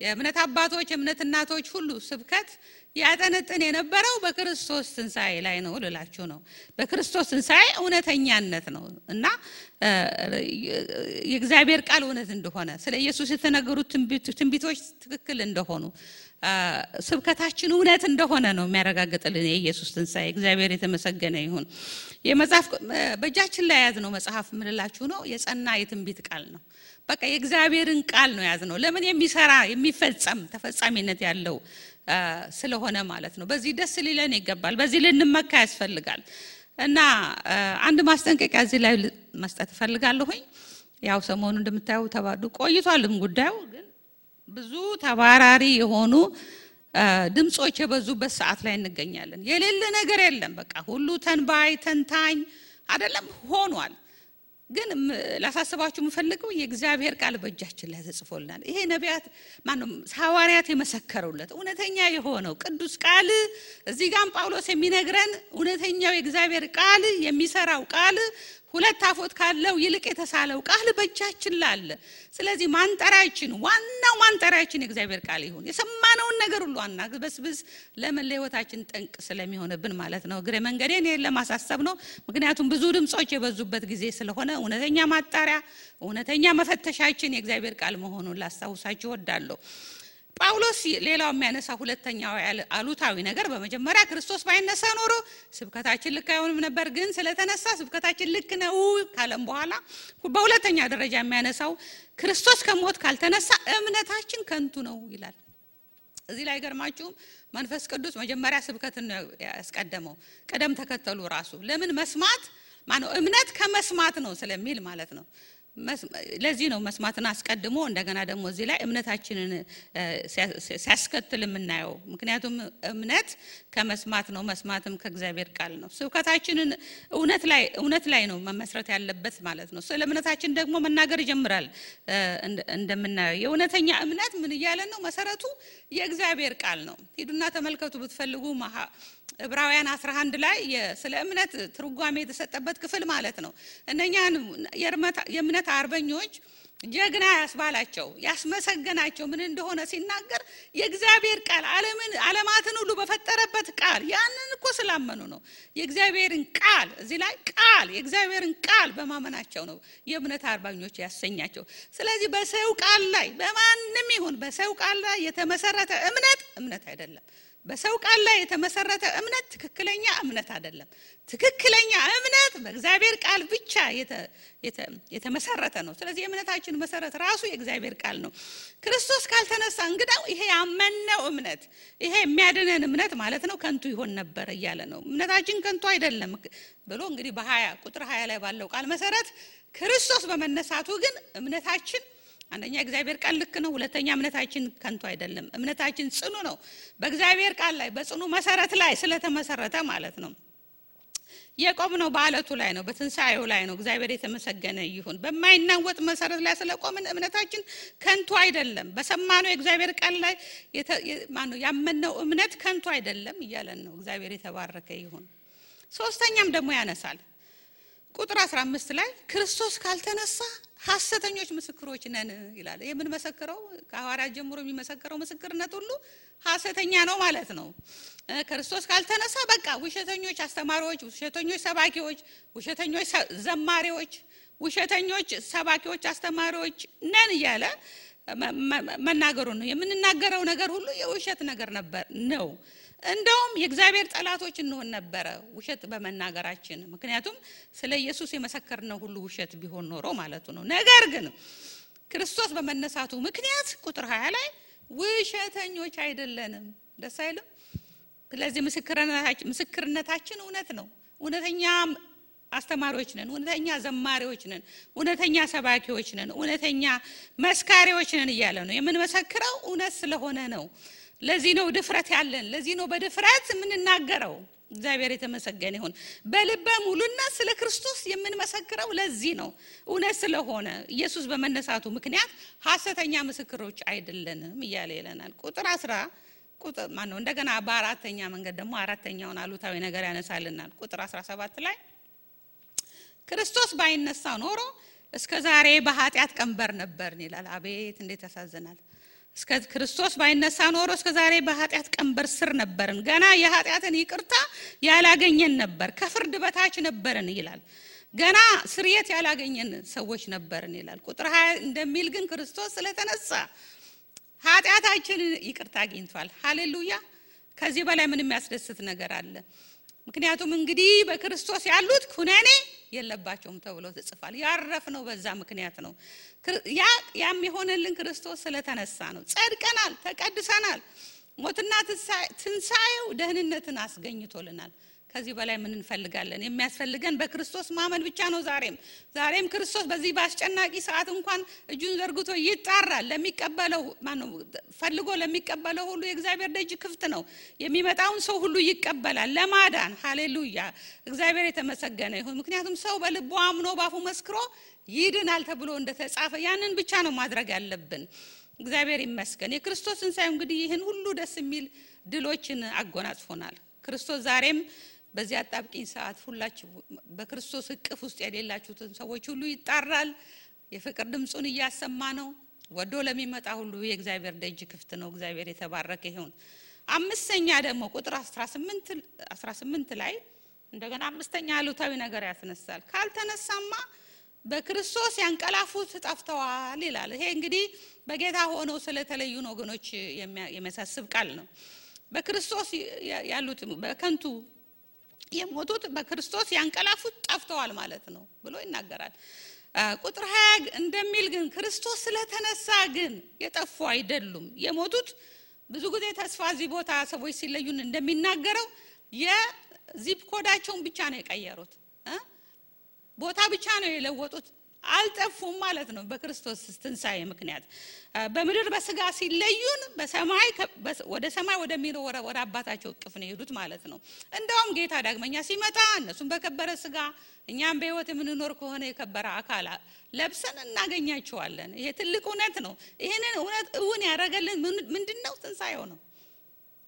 የእምነት አባቶች የእምነት እናቶች ሁሉ ስብከት ያጠነጥን የነበረው በክርስቶስ ትንሣኤ ላይ ነው ልላችሁ ነው። በክርስቶስ ትንሣኤ እውነተኛነት ነው እና የእግዚአብሔር ቃል እውነት እንደሆነ ስለ ኢየሱስ የተነገሩት ትንቢቶች ትክክል እንደሆኑ ስብከታችን እውነት እንደሆነ ነው የሚያረጋግጥልን የኢየሱስ ትንሣኤ። እግዚአብሔር የተመሰገነ ይሁን። የመጽሐፍ በእጃችን ላይ ያዝነው መጽሐፍ ምንላችሁ ነው የጸና የትንቢት ቃል ነው። በቃ የእግዚአብሔርን ቃል ነው ያዝነው። ለምን የሚሰራ የሚፈጸም ተፈጻሚነት ያለው ስለሆነ ማለት ነው። በዚህ ደስ ሊለን ይገባል። በዚህ ልንመካ ያስፈልጋል። እና አንድ ማስጠንቀቂያ እዚህ ላይ መስጠት ፈልጋለሁኝ። ያው ሰሞኑን እንደምታዩ ተባዱ ቆይቷልም ጉዳዩ ግን ብዙ ተባራሪ የሆኑ ድምጾች የበዙበት ሰዓት ላይ እንገኛለን። የሌለ ነገር የለም። በቃ ሁሉ ተንባይ ተንታኝ አይደለም ሆኗል። ግን ላሳስባችሁ የምፈልገው የእግዚአብሔር ቃል በእጃችን ላይ ተጽፎልናል። ይሄ ነቢያት ማንም ሐዋርያት የመሰከሩለት እውነተኛ የሆነው ቅዱስ ቃል እዚህ ጋር ጳውሎስ የሚነግረን እውነተኛው የእግዚአብሔር ቃል የሚሰራው ቃል ሁለት አፎት ካለው ይልቅ የተሳለው ቃል በእጃችን ላይ አለ። ስለዚህ ማንጠራችን ዋናው ማንጠራችን የእግዚአብሔር ቃል ይሁን። የሰማነውን ነገር ሁሉ አናግበስብስ ለምን ለህይወታችን ጠንቅ ስለሚሆንብን ማለት ነው። እግረ መንገዴን ለማሳሰብ ነው። ምክንያቱም ብዙ ድምጾች የበዙበት ጊዜ ስለሆነ እውነተኛ ማጣሪያ እውነተኛ መፈተሻችን የእግዚአብሔር ቃል መሆኑን ላስታውሳችሁ እወዳለሁ። ጳውሎስ ሌላው የሚያነሳ ሁለተኛው አሉታዊ ነገር በመጀመሪያ ክርስቶስ ባይነሳ ኖሮ ስብከታችን ልክ አይሆንም ነበር፣ ግን ስለተነሳ ስብከታችን ልክ ነው ካለም በኋላ በሁለተኛ ደረጃ የሚያነሳው ክርስቶስ ከሞት ካልተነሳ እምነታችን ከንቱ ነው ይላል። እዚህ ላይ ገርማችሁ መንፈስ ቅዱስ መጀመሪያ ስብከትን ያስቀደመው ቀደም ተከተሉ ራሱ ለምን መስማት ማነው እምነት ከመስማት ነው ስለሚል ማለት ነው። ለዚህ ነው መስማትን አስቀድሞ እንደገና ደግሞ እዚህ ላይ እምነታችንን ሲያስከትል የምናየው። ምክንያቱም ከመስማት ነው፣ መስማትም ከእግዚአብሔር ቃል ነው። ስብከታችንን እውነት ላይ ነው መመስረት ያለበት ማለት ነው። ስለ እምነታችን ደግሞ መናገር ይጀምራል። እንደምናየው የእውነተኛ እምነት ምን እያለ ነው? መሰረቱ የእግዚአብሔር ቃል ነው። ሂዱና ተመልከቱ ብትፈልጉ ዕብራውያን 11 ላይ ስለ እምነት ትርጓሜ የተሰጠበት ክፍል ማለት ነው። እነኛን የእምነት አርበኞች ጀግና ያስባላቸው ያስመሰገናቸው ምን እንደሆነ ሲናገር የእግዚአብሔር ቃል ዓለማትን ሁሉ በፈጠረበት ቃል ያንን እኮ ስላመኑ ነው። የእግዚአብሔርን ቃል እዚህ ላይ የእግዚአብሔርን ቃል በማመናቸው ነው የእምነት አርበኞች ያሰኛቸው። ስለዚህ በሰው ቃል ላይ በማንም ይሁን በሰው ቃል ላይ የተመሰረተ እምነት አይደለም። በሰው ቃል ላይ የተመሰረተ እምነት ትክክለኛ እምነት አይደለም። ትክክለኛ እምነት በእግዚአብሔር ቃል ብቻ የተመሰረተ ነው። ስለዚህ የእምነታችን መሰረት ራሱ የእግዚአብሔር ቃል ነው። ክርስቶስ ካልተነሳ እንግዳው ይሄ ያመነው እምነት ይሄ የሚያድነን እምነት ማለት ነው ከንቱ ይሆን ነበር እያለ ነው። እምነታችን ከንቱ አይደለም ብሎ እንግዲህ ቁጥር 20 ላይ ባለው ቃል መሰረት ክርስቶስ በመነሳቱ ግን እምነታችን አንደኛ እግዚአብሔር ቃል ልክ ነው፣ ሁለተኛ እምነታችን ከንቱ አይደለም። እምነታችን ጽኑ ነው፣ በእግዚአብሔር ቃል ላይ በጽኑ መሰረት ላይ ስለተመሰረተ ማለት ነው። የቆምነው በአለቱ ላይ ነው፣ በትንሳኤው ላይ ነው። እግዚአብሔር የተመሰገነ ይሁን። በማይናወጥ መሰረት ላይ ስለቆምን እምነታችን ከንቱ አይደለም። በሰማነው የእግዚአብሔር ቃል ላይ ያመነው እምነት ከንቱ አይደለም እያለን ነው። እግዚአብሔር የተባረከ ይሁን። ሶስተኛም ደግሞ ያነሳል ቁጥር 15 ላይ ክርስቶስ ካልተነሳ ሐሰተኞች ምስክሮች ነን ይላል። የምን መሰከረው ከሐዋርያት ጀምሮ የሚመሰከረው ምስክርነት ሁሉ ሐሰተኛ ነው ማለት ነው። ክርስቶስ ካልተነሳ በቃ ውሸተኞች አስተማሪዎች፣ ውሸተኞች ሰባኪዎች፣ ውሸተኞች ዘማሪዎች፣ ውሸተኞች ሰባኪዎች አስተማሪዎች ነን እያለ መናገሩ ነው። የምንናገረው ነገር ሁሉ የውሸት ነገር ነው። እንደውም የእግዚአብሔር ጠላቶች እንሆን ነበር ውሸት በመናገራችን። ምክንያቱም ስለ ኢየሱስ የመሰከርነው ሁሉ ውሸት ቢሆን ኖሮ ማለቱ ነው። ነገር ግን ክርስቶስ በመነሳቱ ምክንያት ቁጥር 20 ላይ ውሸተኞች አይደለንም። ደስ አይልም? ስለዚህ ምስክርነታችን እውነት ነው። እውነተኛ አስተማሪዎች ነን፣ እውነተኛ ዘማሪዎች ነን፣ እውነተኛ ሰባኪዎች ነን፣ እውነተኛ መስካሪዎች ነን እያለ ነው። የምንመሰክረው እውነት ስለሆነ ነው። ለዚህ ነው ድፍረት ያለን፣ ለዚህ ነው በድፍረት የምንናገረው። እግዚአብሔር የተመሰገነ ይሁን። በልበ ሙሉነት ስለ ክርስቶስ የምንመሰክረው ለዚህ ነው፣ እውነት ስለሆነ ኢየሱስ በመነሳቱ ምክንያት ሐሰተኛ ምስክሮች አይደለንም እያለ ይለናል። ቁጥር 10 እንደገና በአራተኛ መንገድ ደግሞ አራተኛውን አሉታዊ ነገር ያነሳልናል። ቁጥር 17 ላይ ክርስቶስ ባይነሳ ኖሮ እስከ ዛሬ በኃጢአት ቀንበር ነበርን ይላል። አቤት እንዴት ያሳዝናል! እስከ ክርስቶስ ባይነሳ ኖሮ እስከ ዛሬ በኃጢአት ቀንበር ስር ነበርን፣ ገና የኃጢአትን ይቅርታ ያላገኘን ነበር፣ ከፍርድ በታች ነበርን ይላል። ገና ስርየት ያላገኘን ሰዎች ነበርን ይላል። ቁጥር 20 እንደሚል ግን ክርስቶስ ስለተነሳ ኃጢአታችንን ይቅርታ አግኝቷል። ሃሌሉያ! ከዚህ በላይ ምን የሚያስደስት ነገር አለ? ምክንያቱም እንግዲህ በክርስቶስ ያሉት ኩነኔ የለባቸውም ተብሎ ተጽፏል። ያረፍነው በዛ ምክንያት ነው። ያም የሆነልን ክርስቶስ ስለተነሳ ነው። ጸድቀናል፣ ተቀድሰናል። ሞትና ትንሳኤው ደህንነትን አስገኝቶልናል። ከዚህ በላይ ምን እንፈልጋለን? የሚያስፈልገን በክርስቶስ ማመን ብቻ ነው። ዛሬም ክርስቶስ በዚህ በአስጨናቂ ሰዓት እንኳን እጁን ዘርግቶ ይጣራል። ለሚቀበለው ፈልጎ ለሚቀበለው ሁሉ የእግዚአብሔር ደጅ ክፍት ነው። የሚመጣውን ሰው ሁሉ ይቀበላል ለማዳን። ሃሌሉያ! እግዚአብሔር የተመሰገነ ይሁን። ምክንያቱም ሰው በልቡ አምኖ ባፉ መስክሮ ይድናል ተብሎ እንደተጻፈ ያንን ብቻ ነው ማድረግ ያለብን። እግዚአብሔር ይመስገን። የክርስቶስ ትንሣኤ እንግዲህ ይህን ሁሉ ደስ የሚል ድሎችን አጎናጽፎናል። ክርስቶስ ዛሬም በዚህ አጣብቂኝ ሰዓት ሁላችሁ በክርስቶስ እቅፍ ውስጥ የሌላችሁትን ሰዎች ሁሉ ይጣራል። የፍቅር ድምጹን እያሰማ ነው። ወዶ ለሚመጣ ሁሉ የእግዚአብሔር ደጅ ክፍት ነው። እግዚአብሔር የተባረከ ይሁን። አምስተኛ ደግሞ ቁጥር 18 ላይ እንደገና አምስተኛ አሉታዊ ነገር ያስነሳል። ካልተነሳማ በክርስቶስ ያንቀላፉት ጠፍተዋል ይላል። ይሄ እንግዲህ በጌታ ሆነው ስለተለዩን ወገኖች የሚያሳስብ ቃል ነው። በክርስቶስ ያሉት በከንቱ የሞቱት በክርስቶስ ያንቀላፉት ጠፍተዋል ማለት ነው ብሎ ይናገራል። ቁጥር 20 እንደሚል ግን ክርስቶስ ስለተነሳ ግን የጠፉ አይደሉም። የሞቱት ብዙ ጊዜ ተስፋ እዚህ ቦታ ሰዎች ሲለዩን እንደሚናገረው የዚፕ ኮዳቸውን ብቻ ነው የቀየሩት፣ ቦታ ብቻ ነው የለወጡት። አልጠፉም ማለት ነው። በክርስቶስ ትንሣኤ ምክንያት በምድር በስጋ ሲለዩን በሰማይ ወደ ሰማይ ወደሚኖር ወደ አባታቸው እቅፍ ነው የሄዱት ማለት ነው። እንደውም ጌታ ዳግመኛ ሲመጣ እነሱም በከበረ ስጋ እኛም በሕይወት የምንኖር ከሆነ የከበረ አካል ለብሰን እናገኛቸዋለን። ይሄ ትልቅ እውነት ነው። ይሄንን እውነት እውን ያደረገልን ምንድነው? ትንሣኤው ነው።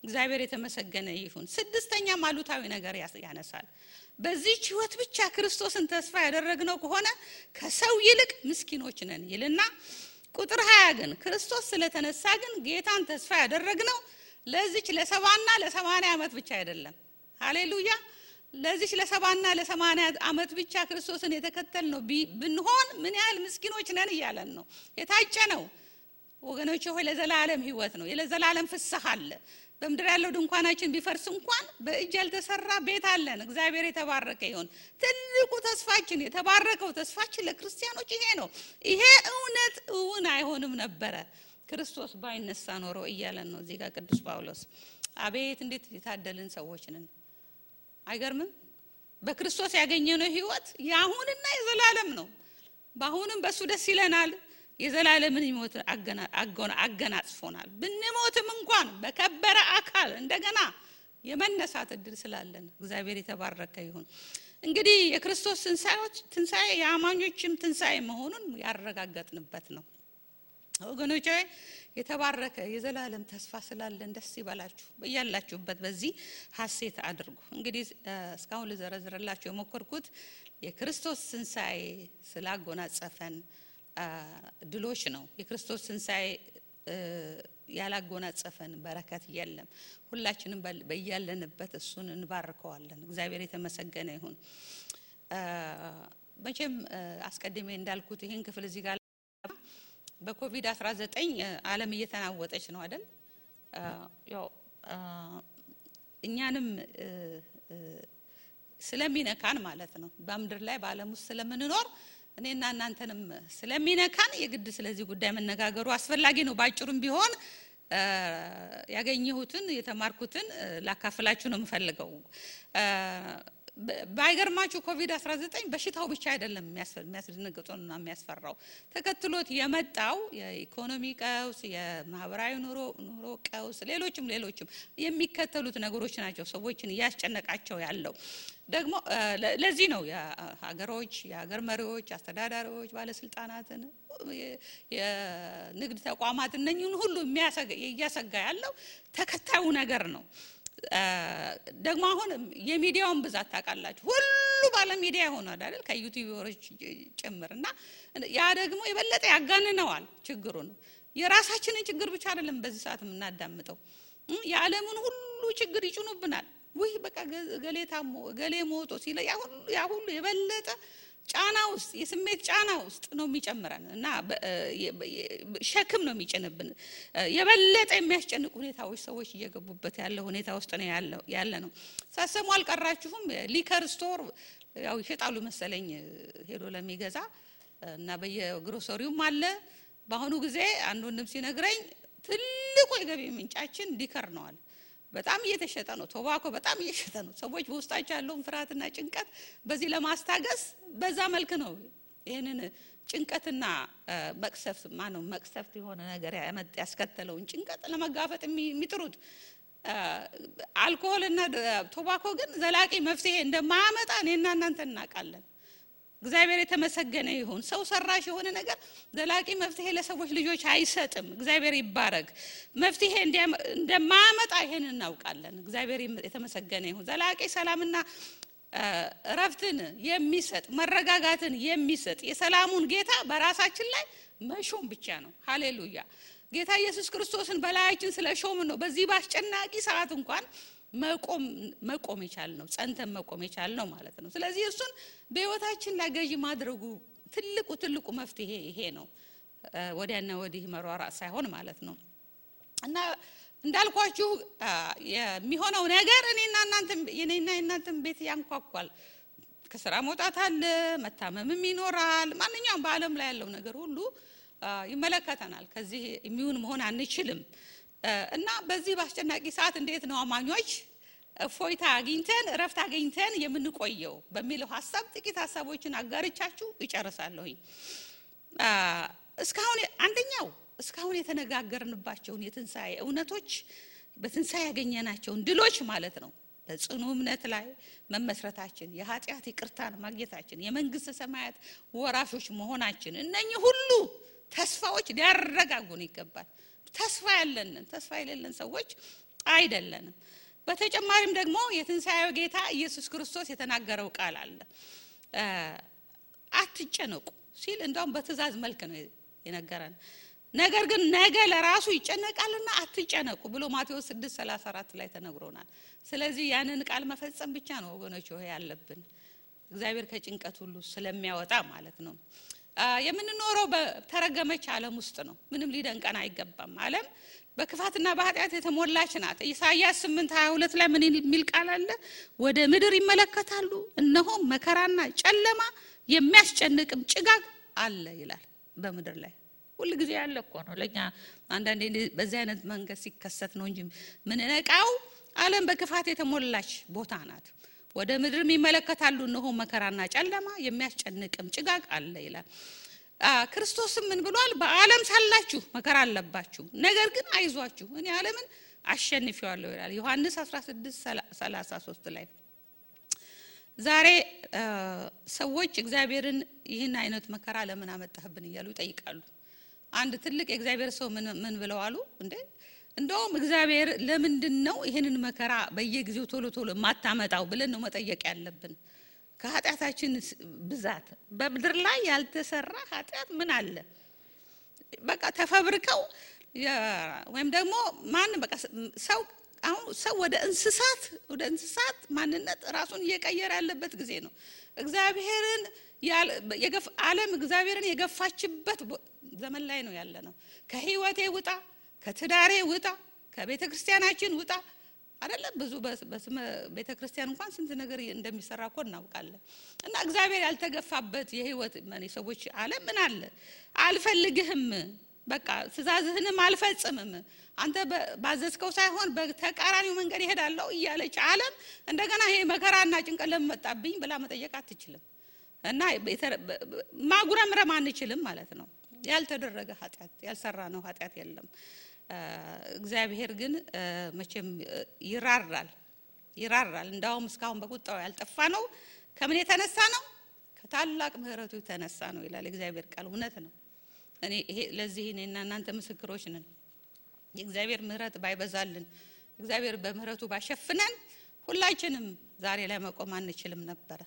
እግዚአብሔር የተመሰገነ ይሁን። ስድስተኛም አሉታዊ ነገር ያነሳል። በዚህ ሕይወት ብቻ ክርስቶስን ተስፋ ያደረግነው ከሆነ ከሰው ይልቅ ምስኪኖች ነን ይልና ቁጥር 20 ግን ክርስቶስ ስለተነሳ ግን ጌታን ተስፋ ያደረግነው ለዚች ለ70 እና ለ80 ዓመት ብቻ አይደለም። ሃሌሉያ! ለዚች ለ70 እና ለ80 ዓመት ብቻ ክርስቶስን የተከተልነው ብንሆን ምን ያህል ምስኪኖች ነን እያለን ነው። የታጨ ነው ወገኖቼ ሆይ ለዘላለም ሕይወት ነው። ለዘላለም ፍስሐ አለ። በምድር ያለው ድንኳናችን ቢፈርስ እንኳን በእጅ ያልተሰራ ቤት አለን። እግዚአብሔር የተባረከ ይሁን። ትልቁ ተስፋችን የተባረከው ተስፋችን ለክርስቲያኖች ይሄ ነው። ይሄ እውነት እውን አይሆንም ነበረ ክርስቶስ ባይነሳ ኖሮ እያለን ነው እዚህ ጋር ቅዱስ ጳውሎስ። አቤት እንዴት የታደልን ሰዎች ነን! አይገርምም? በክርስቶስ ያገኘነው ሕይወት የአሁንና የዘላለም ነው። በአሁንም በሱ ደስ ይለናል። የዘላለምን ሕይወት አገናጽፎናል። ብንሞትም እንኳን በከበረ አካል እንደገና የመነሳት እድል ስላለን እግዚአብሔር የተባረከ ይሁን። እንግዲህ የክርስቶስ ትንሣኤ የአማኞችም ትንሣኤ መሆኑን ያረጋገጥንበት ነው ወገኖቼ። የተባረከ የዘላለም ተስፋ ስላለን ደስ ይበላችሁ። በያላችሁበት በዚህ ሐሴት አድርጉ። እንግዲህ እስካሁን ልዘረዝርላችሁ የሞከርኩት የክርስቶስ ትንሣኤ ስላጎናጸፈን ድሎች ነው። የክርስቶስ ትንሣኤ ያላጎናጸፈን በረከት የለም። ሁላችንም በያለንበት እሱን እንባርከዋለን። እግዚአብሔር የተመሰገነ ይሁን። መቼም አስቀድሜ እንዳልኩት ይሄን ክፍል እዚህ ጋር በኮቪድ-19 ዓለም እየተናወጠች ነው አይደል? ያው እኛንም ስለሚነካን ማለት ነው። በምድር ላይ በዓለም ውስጥ ስለምንኖር እኔና እናንተንም ስለሚነካን የግድ ስለዚህ ጉዳይ መነጋገሩ አስፈላጊ ነው። ባጭሩም ቢሆን ያገኘሁትን የተማርኩትን ላካፍላችሁ ነው የምፈልገው። ባይገርማችሁ ኮቪድ-19 በሽታው ብቻ አይደለም የሚያስደነግጠውና የሚያስፈራው። ተከትሎት የመጣው የኢኮኖሚ ቀውስ፣ የማህበራዊ ኑሮ ቀውስ፣ ሌሎችም የሚከተሉት ነገሮች ናቸው ሰዎችን እያስጨነቃቸው ያለው። ደግሞ ለዚህ ነው የሀገር መሪዎች፣ አስተዳዳሪዎች፣ ባለስልጣናትን፣ የንግድ ተቋማት እነኚህን ሁሉ እያሰጋ ያለው ተከታዩ ነገር ነው። ደግሞ አሁን የሚዲያውን ብዛት ታውቃላችሁ። ሁሉ ባለ ሚዲያ ሆኗል አይደል? ከዩቲዩበሮች ጭምርና ያ ደግሞ የበለጠ ያጋንነዋል ችግሩን። የራሳችንን ችግር ብቻ አይደለም በዚህ ሰዓት የምናዳምጠው፣ የዓለምን ሁሉ ችግር ይጭኑብናል። ወይ በቃ ገሌ ሞቶ ሲለ ያ ሁሉ የበለጠ ጫና ውስጥ የስሜት ጫና ውስጥ ነው የሚጨምረን እና ሸክም ነው የሚጭንብን። የበለጠ የሚያስጨንቁ ሁኔታዎች ሰዎች እየገቡበት ያለው ሁኔታ ውስጥ ነው ያለ ነው። ሳሰሙ አልቀራችሁም? ሊከር ስቶር ያው ይሸጣሉ መሰለኝ ሄዶ ለሚገዛ እና በየግሮሰሪውም አለ። በአሁኑ ጊዜ አንድ ወንድም ሲነግረኝ ትልቁ የገቢ ምንጫችን ሊከር ነው አለ። በጣም እየተሸጠ ነው ቶባኮ፣ በጣም እየተሸጠ ነው። ሰዎች በውስጣቸው ያለውን ፍርሃትና ጭንቀት በዚህ ለማስታገስ በዛ መልክ ነው ይሄንን ጭንቀትና መቅሰፍት ማነው መቅሰፍት የሆነ ነገር ያስከተለውን ጭንቀት ለመጋፈጥ የሚጥሩት። አልኮሆልና ቶባኮ ግን ዘላቂ መፍትሄ እንደማያመጣ እኔና እናንተ እናውቃለን። እግዚአብሔር የተመሰገነ ይሁን። ሰው ሰራሽ የሆነ ነገር ዘላቂ መፍትሄ ለሰዎች ልጆች አይሰጥም። እግዚአብሔር ይባረክ። መፍትሄ እንደማያመጣ ይሄን እናውቃለን። እግዚአብሔር የተመሰገነ ይሁን። ዘላቂ ሰላምና እረፍትን የሚሰጥ መረጋጋትን የሚሰጥ የሰላሙን ጌታ በራሳችን ላይ መሾም ብቻ ነው። ሃሌሉያ። ጌታ ኢየሱስ ክርስቶስን በላያችን ስለሾም ነው በዚህ ባስጨናቂ ሰዓት እንኳን መቆም ይቻል ነው፣ ጸንተን መቆም ይቻል ነው ማለት ነው። ስለዚህ እሱን በህይወታችን ላይ ገዢ ማድረጉ ትልቁ መፍትሄ ይሄ ነው። ወዲያና ወዲህ መሯሯጥ ሳይሆን ማለት ነው። እና እንዳልኳችሁ የሚሆነው ነገር እኔና እናንተም ቤት ያንኳኳል። ከስራ መውጣት አለ፣ መታመምም ይኖራል። ማንኛውም በአለም ላይ ያለው ነገር ሁሉ ይመለከተናል። ከዚህ የሚሆን መሆን አንችልም። እና በዚህ ባስጨናቂ ሰዓት እንዴት ነው አማኞች እፎይታ አግኝተን እረፍት አግኝተን የምንቆየው በሚለው ሐሳብ ጥቂት ሐሳቦችን አጋርቻችሁ እጨርሳለሁ። እስካሁን የተነጋገርንባቸውን የትንሣኤ እውነቶች በትንሣኤ ያገኘናቸውን ድሎች ማለት ነው በጽኑ እምነት ላይ መመስረታችን፣ የኃጢአት ይቅርታን ማግኘታችን፣ የመንግስተ ሰማያት ወራሾች መሆናችን እነኚህ ሁሉ ተስፋዎች ሊያረጋጉን ይገባል። ተስፋ የሌለን ሰዎች አይደለንም። በተጨማሪም ደግሞ የትንሣኤው ጌታ ኢየሱስ ክርስቶስ የተናገረው ቃል አለ። አትጨነቁ ሲል እንደውም በትእዛዝ መልክ ነው የነገረን። ነገር ግን ነገ ለራሱ ይጨነቃልና አትጨነቁ ብሎ ማቴዎስ 6:34 ላይ ተነግሮናል። ስለዚህ ያንን ቃል መፈጸም ብቻ ነው ወገኖች ሆይ ያለብን፣ እግዚአብሔር ከጭንቀት ሁሉ ስለሚያወጣ ማለት ነው። የምንኖረው በተረገመች ዓለም ውስጥ ነው። ምንም ሊደንቀን አይገባም። ዓለም በክፋትና በኃጢአት የተሞላች ናት። ኢሳይያስ 8:22 ላይ ምን የሚል ቃል አለ? ወደ ምድር ይመለከታሉ፣ እነሆም መከራና ጨለማ የሚያስጨንቅም ጭጋግ አለ ይላል። በምድር ላይ ሁሉ ጊዜ ያለ እኮ ነው። ለኛ አንዳንዴ በዚህ አይነት መንገድ ሲከሰት ነው እንጂ ምን ነቃው። ዓለም በክፋት የተሞላች ቦታ ናት። ወደ ምድር ይመለከታሉ፣ እነሆ መከራና ጨለማ የሚያስጨንቅም ጭጋግ አለ ይላል። ክርስቶስም ምን ብሏል? በዓለም ሳላችሁ መከራ አለባችሁ፣ ነገር ግን አይዟችሁ እኔ ዓለምን አሸንፌዋለሁ ይላል ዮሐንስ 16:33 ላይ። ዛሬ ሰዎች እግዚአብሔርን ይህን አይነት መከራ ለምን አመጣህብን እያሉ ይጠይቃሉ። አንድ ትልቅ የእግዚአብሔር ሰው ምን ብለው አሉ? እንደውም እግዚአብሔር ለምንድነው ይሄንን መከራ በየጊዜው ቶሎ ማታመጣው ብለን ነው መጠየቅ ያለብን። ከኃጢአታችን ብዛት በምድር ላይ ያልተሰራ ኃጢአት ምን አለ? በቃ ተፈብርከው ወይም ደግሞ ማን በቃ ሰው ወደ እንስሳት ማንነት ራሱን እየቀየረ ያለበት ጊዜ ነው። እግዚአብሔርን ዓለም እግዚአብሔርን የገፋችበት ዘመን ላይ ነው ያለነው። ከህይወቴ ውጣ፣ ከትዳሬ ውጣ፣ ከቤተ ክርስቲያናችን ውጣ አይደለም። ብዙ በስመ ቤተ ክርስቲያን እንኳን ስንት ነገር እንደሚሰራ እኮ እናውቃለን። እና እግዚአብሔር ያልተገፋበት የህይወት ሰዎች ዓለም ምን አለ? አልፈልግህም፣ በቃ ትእዛዝህንም አልፈጽምም፣ አንተ ባዘዝከው ሳይሆን በተቃራኒው መንገድ ይሄዳለው እያለች ዓለም እንደገና ይሄ መከራና ጭንቀት ለመጣብኝ ብላ መጠየቅ አትችልም። እና ማጉረምረም አንችልም ማለት ነው። ያልተደረገ ኃጢአት ያልሰራነው ኃጢአት የለም። እግዚአብሔር ግን መቼም ይራራል። እንዳውም እስካሁን በቁጣው ያልጠፋ ነው። ከምን የተነሳ ነው? ከታላቅ ምህረቱ የተነሳ ነው ይላል እግዚአብሔር ቃል። እውነት ነው። ለዚህ እኔና እናንተ ምስክሮች ነን። የእግዚአብሔር ምህረት ባይበዛልን፣ እግዚአብሔር በምህረቱ ባሸፍነን ሁላችንም ዛሬ ላይ መቆም አንችልም ነበር።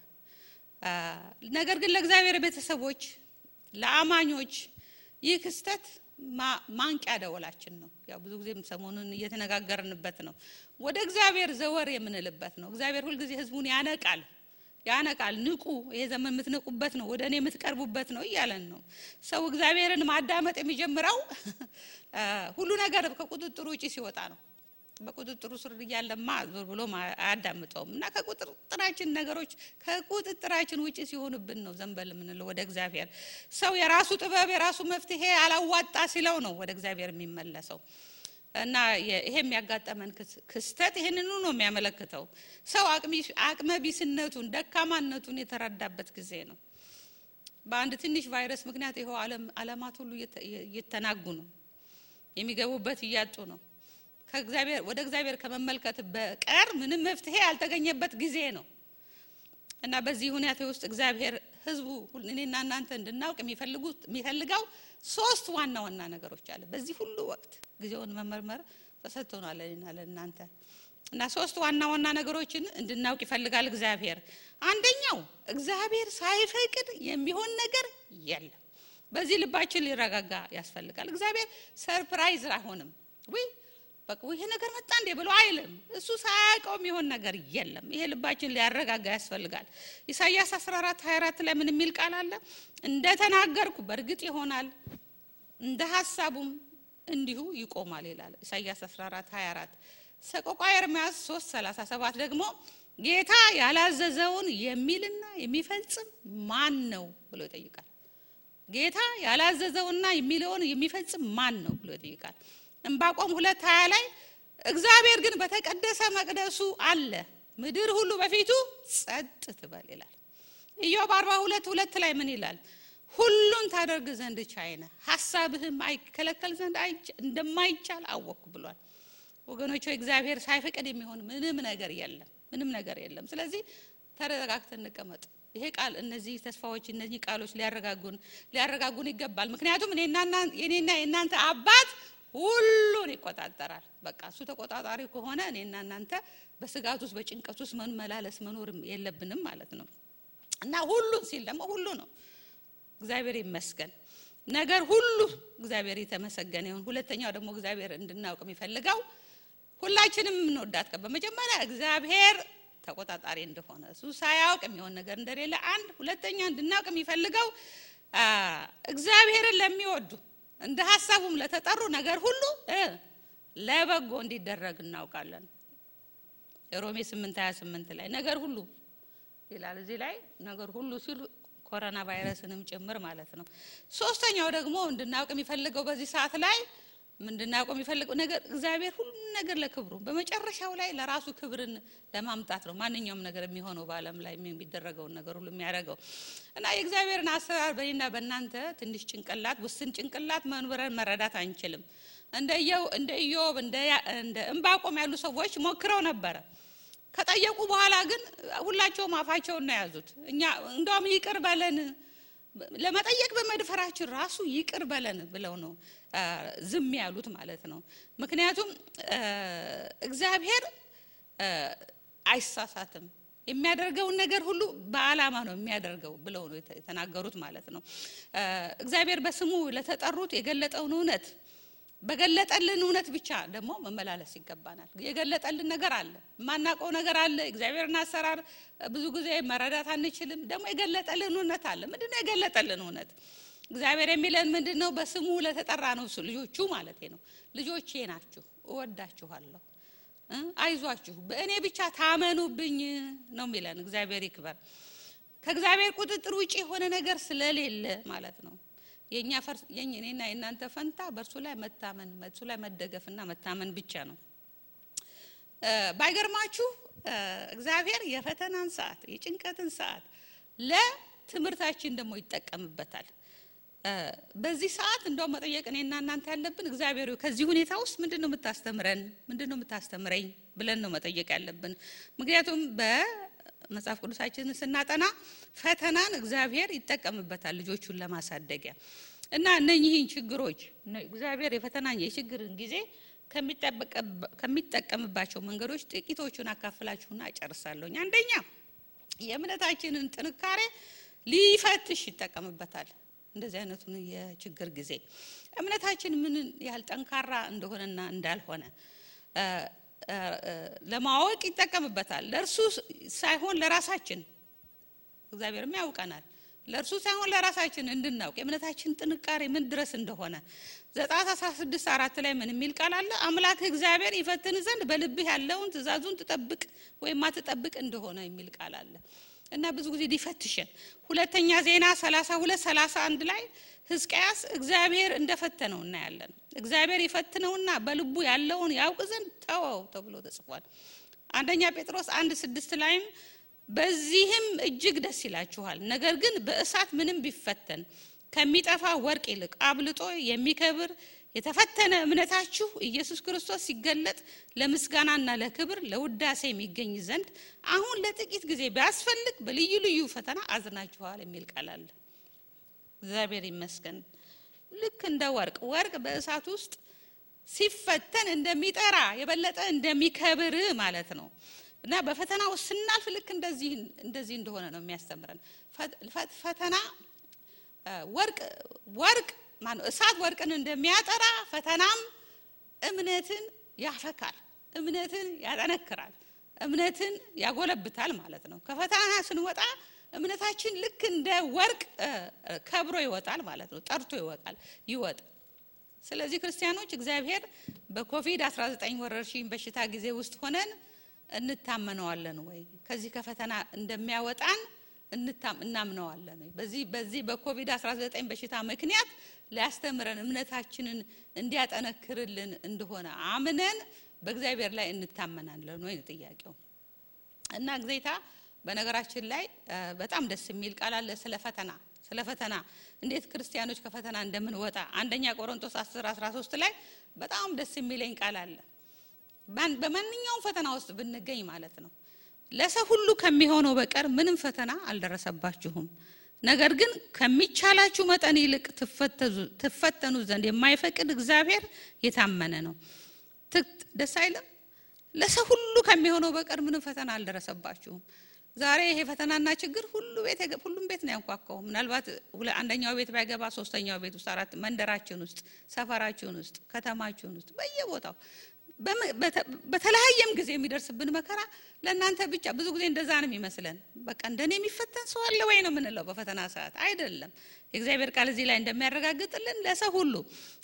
ነገር ግን ለእግዚአብሔር ቤተሰቦች ለአማኞች ይህ ክስተት ማንቂያ ደወላችን ነው። ያው ብዙ ጊዜ ሰሞኑን እየተነጋገርንበት ነው። ወደ እግዚአብሔር ዘወር የምንልበት ነው። እግዚአብሔር ሁሉ ጊዜ ህዝቡን ያነቃል። ንቁ፣ ይሄ ዘመን የምትነቁበት ነው፣ ወደኔ የምትቀርቡበት ነው እያለን ነው። ሰው እግዚአብሔርን ማዳመጥ የሚጀምረው ሁሉ ነገር ከቁጥጥሩ ውጪ ሲወጣ ነው። በቁጥጥሩ ስር እያለማ ዞር ብሎ አያዳምጠውም። እና ከቁጥጥራችን ነገሮች ከቁጥጥራችን ውጪ ሲሆንብን ነው ዘንበል የምንለው ወደ እግዚአብሔር። ሰው የራሱ ጥበብ የራሱ መፍትሄ አላዋጣ ሲለው ነው ወደ እግዚአብሔር የሚመለሰው። እና ይሄ የሚያጋጠመን ክስተት ይሄንን ነው የሚያመለክተው። ሰው አቅመ ቢስነቱን ደካማነቱን የተረዳበት ጊዜ ነው። በአንድ ትንሽ ቫይረስ ምክንያት ይሄው ዓለማት ሁሉ እየተናጉ ነው፣ የሚገቡበት እያጡ ነው። ከእግዚአብሔር ወደ እግዚአብሔር ከመመልከት በቀር ምንም መፍትሄ ያልተገኘበት ጊዜ ነው። እና በዚህ ሁኔታ ውስጥ እግዚአብሔር ህዝቡ እኔና እናንተ እንድናውቅ የሚፈልገው ሶስት ዋና ዋና ነገሮች አለ። በዚህ ሁሉ ወቅት ጊዜውን መመርመር ተሰጥቶናል እኔና ለእናንተ። እና ሶስት ዋና ዋና ነገሮችን እንድናውቅ ይፈልጋል እግዚአብሔር። አንደኛው እግዚአብሔር ሳይፈቅድ የሚሆን ነገር የለም። በዚህ ልባችን ሊረጋጋ ያስፈልጋል። እግዚአብሔር ሰርፕራይዝ አይሆንም። በቃ ይሄ ነገር መጣ እንዴ ብሎ አይልም። እሱ ሳያውቀው የሚሆን ነገር የለም። ይሄ ልባችን ሊያረጋጋ ያስፈልጋል። ኢሳይያስ 14:24 ላይ ምን የሚል ቃል አለ? እንደተናገርኩ በእርግጥ ይሆናል፣ እንደ ሐሳቡም እንዲሁ ይቆማል ይላል ኢሳይያስ 14:24። ሰቆቃወ ኤርምያስ 3:37 ደግሞ ጌታ ያላዘዘውን የሚልና የሚፈጽም ማን ነው ብሎ ይጠይቃል። ጌታ ያላዘዘውና የሚለውን የሚፈጽም ማን ነው ብሎ ይጠይቃል። ዕንባቆም 2:20 ላይ እግዚአብሔር ግን በተቀደሰ መቅደሱ አለ፣ ምድር ሁሉ በፊቱ ጸጥ ትበል ይላል። ኢዮብ 42:2 ላይ ምን ይላል? ሁሉን ታደርግ ዘንድ ቻይ ነህ፣ ሐሳብህም አይከለከል ዘንድ እንደማይቻል አወቅኩ ብሏል። ወገኖች እግዚአብሔር ሳይፈቅድ የሚሆን ምንም ነገር የለም። ስለዚህ ተረጋግተን እንቀመጥ። ይሄ ቃል እነዚህ ተስፋዎች እነዚህ ቃሎች ሊያረጋጉን ይገባል። ምክንያቱም እኔና የእናንተ አባት ሁሉን ይቆጣጠራል። በቃ እሱ ተቆጣጣሪ ከሆነ እኔና እናንተ በስጋት ውስጥ በጭንቀት ውስጥ መመላለስ መኖር የለብንም ማለት ነው። እና ሁሉን ሲል ደግሞ ሁሉ ነው። እግዚአብሔር ይመስገን። ነገር ሁሉ እግዚአብሔር የተመሰገነ ይሁን። ሁለተኛው ደግሞ እግዚአብሔር እንድናውቅ የሚፈልገው ሁላችንም እንወዳት በመጀመሪያ እግዚአብሔር ተቆጣጣሪ እንደሆነ እሱ ሳያውቅ የሚሆን ነገር እንደሌለ አንድ። ሁለተኛ እንድናውቅ የሚፈልገው እግዚአብሔርን ለሚወዱ እንደ ሐሳቡም ለተጠሩ ነገር ሁሉ ለበጎ እንዲደረግ እናውቃለን። ሮሜ 8:28 ላይ ነገር ሁሉ ይላል። እዚህ ላይ ነገር ሁሉ ሲል ኮሮና ቫይረስንም ጭምር ማለት ነው። ሶስተኛው ደግሞ እንድናውቅ የሚፈልገው በዚህ ሰዓት ላይ ምንድነው የሚፈልገው ነገር እግዚአብሔር ሁሉ ነገር ለክብሩ በመጨረሻው ላይ ለራሱ ክብርን ለማምጣት ነው ማንኛውም ነገር የሚሆነው በአለም ላይ የሚደረገው ነገር ሁሉ የሚያደርገው። እና የእግዚአብሔርን አሰራር በእኔና በእናንተ ትንሽ ጭንቅላት ውስን ጭንቅላት መንበረን መረዳት አንችልም። እንደ ኢዮብ እንደ ዕንባቆም ያሉ ሰዎች ሞክረው ነበር። ከጠየቁ በኋላ ግን ሁላቸውም አፋቸውን ነው ያዙት። እኛ እንደውም ይቅር በለን ለመጠየቅ በመድፈራችን ራሱ ይቅር በለን ብለው ነው ዝም ያሉት ማለት ነው። ምክንያቱም እግዚአብሔር አይሳሳትም፣ የሚያደርገውን ነገር ሁሉ በአላማ ነው የሚያደርገው ብለው ነው የተናገሩት ማለት ነው። እግዚአብሔር በስሙ ለተጠሩት የገለጠውን እውነት በገለጠልን እውነት ብቻ ደግሞ መመላለስ ይገባናል። የገለጠልን ነገር አለ፣ ማናቀው ነገር አለ። እግዚአብሔርን አሰራር ብዙ ጊዜ መረዳት አንችልም። ደግሞ የገለጠልን እውነት አለ። ምንድነው የገለጠልን እውነት? እግዚአብሔር የሚለን ምንድነው? በስሙ ለተጠራ ነው ልጆቹ ማለት ነው። ልጆቼ ናችሁ፣ እወዳችኋለሁ፣ አይዟችሁ፣ በእኔ ብቻ ታመኑብኝ ነው የሚለን። እግዚአብሔር ይክበር። ከእግዚአብሔር ቁጥጥር ውጪ የሆነ ነገር ስለሌለ ማለት ነው። የኛና የእናንተ ፈንታ በእርሱ ላይ መታመን፣ በእርሱ ላይ መደገፍና መታመን ብቻ ነው። ባይገርማችሁ እግዚአብሔር የፈተናን ሰዓት የጭንቀትን ሰዓት ለትምህርታችን ደግሞ ይጠቀምበታል። በዚህ ሰዓት እንደው መጠየቅ እኔና እናንተ ያለብን እግዚአብሔር ከዚህ ሁኔታ ውስጥ ምንድነው የምታስተምረን? ምንድነው የምታስተምረኝ ብለን ነው መጠየቅ ያለብን። ምክንያቱም በመጽሐፍ ቅዱሳችን ስናጠና ፈተናን እግዚአብሔር ይጠቀምበታል ልጆቹን ለማሳደጊያ። እና እነኚህን ችግሮች እግዚአብሔር የፈተናን የችግርን ጊዜ ከሚጠቀምባቸው መንገዶች ጥቂቶቹን አካፍላችሁና እጨርሳለሁ። አንደኛ የእምነታችንን ጥንካሬ ሊፈትሽ ይጠቀምበታል። እንደዚህ አይነቱን የችግር ጊዜ እምነታችን ምን ያህል ጠንካራ እንደሆነና እንዳልሆነ ለማወቅ ይጠቀምበታል። ለእርሱ ሳይሆን ለራሳችን እግዚአብሔርም ያውቀናል። ለእርሱ ሳይሆን ለራሳችን እንድናውቅ የእምነታችን ጥንካሬ ምን ድረስ እንደሆነ ዘጸአት 16:4 ላይ ምን የሚል ቃል አለ? አምላክ እግዚአብሔር ይፈትን ዘንድ በልብህ ያለውን ትእዛዙን ትጠብቅ ወይም ማትጠብቅ እንደሆነ የሚል ቃል አለ። እና ብዙ ጊዜ ሊፈትሽን ሁለተኛ ዜና 32:31 ላይ ሕዝቅያስ እግዚአብሔር እንደፈተነው እናያለን። እግዚአብሔር ይፈትነውና በልቡ ያለውን ያውቅ ዘንድ ተወው ተብሎ ተጽፏል። አንደኛ ጴጥሮስ 1:6 ላይም በዚህም እጅግ ደስ ይላችኋል፣ ነገር ግን በእሳት ምንም ቢፈተን ከሚጠፋ ወርቅ ይልቅ አብልጦ የሚከብር የተፈተነ እምነታችሁ ኢየሱስ ክርስቶስ ሲገለጥ ለምስጋናና ለክብር ለውዳሴ የሚገኝ ዘንድ አሁን ለጥቂት ጊዜ ቢያስፈልግ በልዩ ልዩ ፈተና አዝናችኋል የሚል ቃል አለ። እግዚአብሔር ይመስገን። ልክ እንደ ወርቅ በእሳት ውስጥ ሲፈተን እንደሚጠራ የበለጠ እንደሚከብር ማለት ነው። እና በፈተናው ስናልፍ ልክ እንደዚህ እንደሆነ ነው የሚያስተምረን። ፈተና ወርቅ ማነው እሳት ወርቅን እንደሚያጠራ ፈተናም እምነትን ያፈካል፣ እምነትን ያጠነክራል፣ እምነትን ያጎለብታል ማለት ነው። ከፈተና ስንወጣ እምነታችን ልክ እንደ ወርቅ ከብሮ ይወጣል ማለት ነው፣ ጠርቶ ይወጣል። ስለዚህ ክርስቲያኖች እግዚአብሔር በኮቪድ-19 ወረርሽኝ በሽታ ጊዜ ውስጥ ሆነን እንታመነዋለን ወይ? ከዚህ ከፈተና እንደሚያወጣን እናምነዋለን ወይ? በዚህ በኮቪድ-19 በሽታ ምክንያት ሊያስተምረን እምነታችንን እንዲያጠነክርልን እንደሆነ አምነን በእግዚአብሔር ላይ እንታመናለን ወይ ነው ጥያቄው። እና ጌታ በነገራችን ላይ በጣም ደስ የሚል ቃል አለ ስለ ፈተና እንዴት ክርስቲያኖች ከፈተና እንደምንወጣ አንደኛ ቆሮንቶስ 10:13 ላይ በጣም ደስ የሚለኝ ቃል አለ። በማንኛውም ፈተና ውስጥ ብንገኝ ማለት ነው ለሰው ሁሉ ከሚሆነው በቀር ምንም ፈተና አልደረሰባችሁም፣ ነገር ግን ከሚቻላችሁ መጠን ይልቅ ትፈተኑ ዘንድ የማይፈቅድ እግዚአብሔር የታመነ ነው። ደስ አይልም? ለሰው ሁሉ ከሚሆነው በቀር ምንም ፈተና አልደረሰባችሁም። ዛሬ ይሄ ፈተናና ችግር ሁሉም ቤት ነው ያንኳኳው። ምናልባት አንደኛው ቤት ባይገባ ሶስተኛው ቤት ውስጥ አራት መንደራችን ውስጥ ሰፈራችን ውስጥ ከተማችን ውስጥ በየቦታው በተለያየም ጊዜ የሚደርስብን መከራ ለእናንተ ብቻ ብዙ ጊዜ እንደዛ ነው የሚመስለን። በቃ እንደኔ የሚፈተን ሰው አለ ወይ ነው የምንለው በፈተና ሰዓት። አይደለም። የእግዚአብሔር ቃል እዚህ ላይ እንደሚያረጋግጥልን ለሰው ሁሉ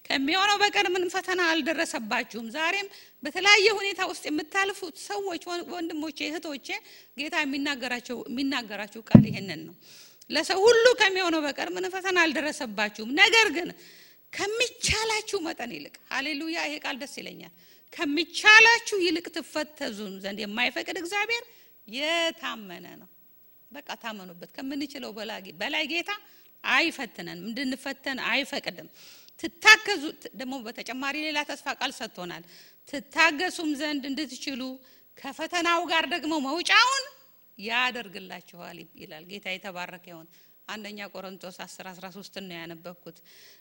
ከሚሆነው በቀር ምንም ፈተና አልደረሰባችሁም። ዛሬም በተለያየ ሁኔታ ውስጥ የምታልፉት ሰዎች ወንድሞቼ እህቶቼ ጌታ የሚናገራችሁ ቃል ይሄንን ነው። ለሰው ሁሉ ከሚሆነው በቀር ምንም ፈተና አልደረሰባችሁም፣ ነገር ግን ከሚቻላችሁ መጠን ይልቅ ሃሌሉያ ይሄ ቃል ደስ ይለኛል። ከሚቻላችሁ ይልቅ ትፈተዙን ዘንድ የማይፈቅድ እግዚአብሔር የታመነ ነው። በቃ ታመኑበት። ከምንችለው በላይ ጌታ አይፈትነንም፣ እንድንፈተን አይፈቅድም። ትታገዙ ደግሞ በተጨማሪ ሌላ ተስፋ ቃል ሰጥቶናል። ትታገሱም ዘንድ እንድትችሉ ከፈተናው ጋር ደግሞ መውጫውን ያደርግላችኋል ይላል። ጌታ የተባረከ ይሁን። አንደኛ ቆሮንቶስ 10:13 ነው ያነበብኩት።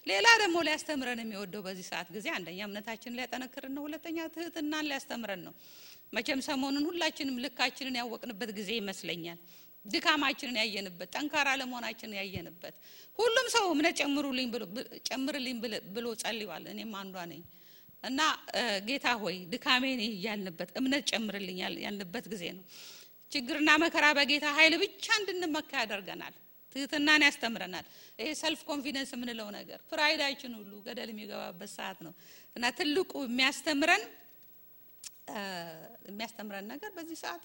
ሌላ ደግሞ ሊያስተምረን የሚወደው በዚህ ሰዓት ጊዜ አንደኛ እምነታችንን ሊያጠነክረን ነው፣ ሁለተኛ ትህትናን ሊያስተምረን ነው። መቼም ሰሞኑን ሁላችንም ልካችንን ያወቅንበት ጊዜ ይመስለኛል። ድካማችንን ያየንበት፣ ጠንካራ ለመሆናችንን ያየንበት። ሁሉም ሰው እምነት ጨምርልኝ ብሎ ጸልዩዋል። እኔም አንዷ ነኝ። እና ጌታ ሆይ ድካሜን ያልንበት እምነት ጨምርልኝ ያልንበት ጊዜ ነው። ችግርና መከራ በጌታ ኃይል ብቻ እንድንመካ ያደርገናል። ትህትናን ያስተምረናል። ይሄ ሰልፍ ኮንፊደንስ የምንለው ነገር ፕራይዳችን ሁሉ ገደል የሚገባበት ሰዓት ነው። እና ትልቁ የሚያስተምረን ነገር በዚህ ሰዓት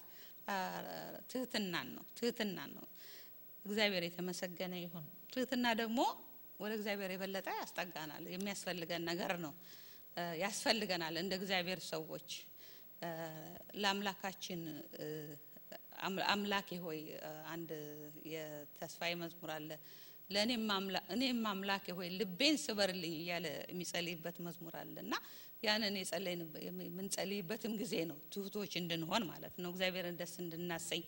ትህትናን ነው። እግዚአብሔር የተመሰገነ ይሁን። ትህትና ደግሞ ወደ እግዚአብሔር የበለጠ ያስጠጋናል። የሚያስፈልገን ነገር ነው። ያስፈልገናል እንደ እግዚአብሔር ሰዎች ለአምላካችን አምላኬ ሆይ አንድ የተስፋዬ መዝሙር አለ። እኔም አምላኬ ሆይ ልቤን ስበርልኝ እያለ የሚጸልይበት መዝሙር አለና ያንን የምንጸልይበትም ጊዜ ነው። ትሁቶች እንድንሆን ማለት ነው፣ እግዚአብሔርን ደስ እንድናሰኝ።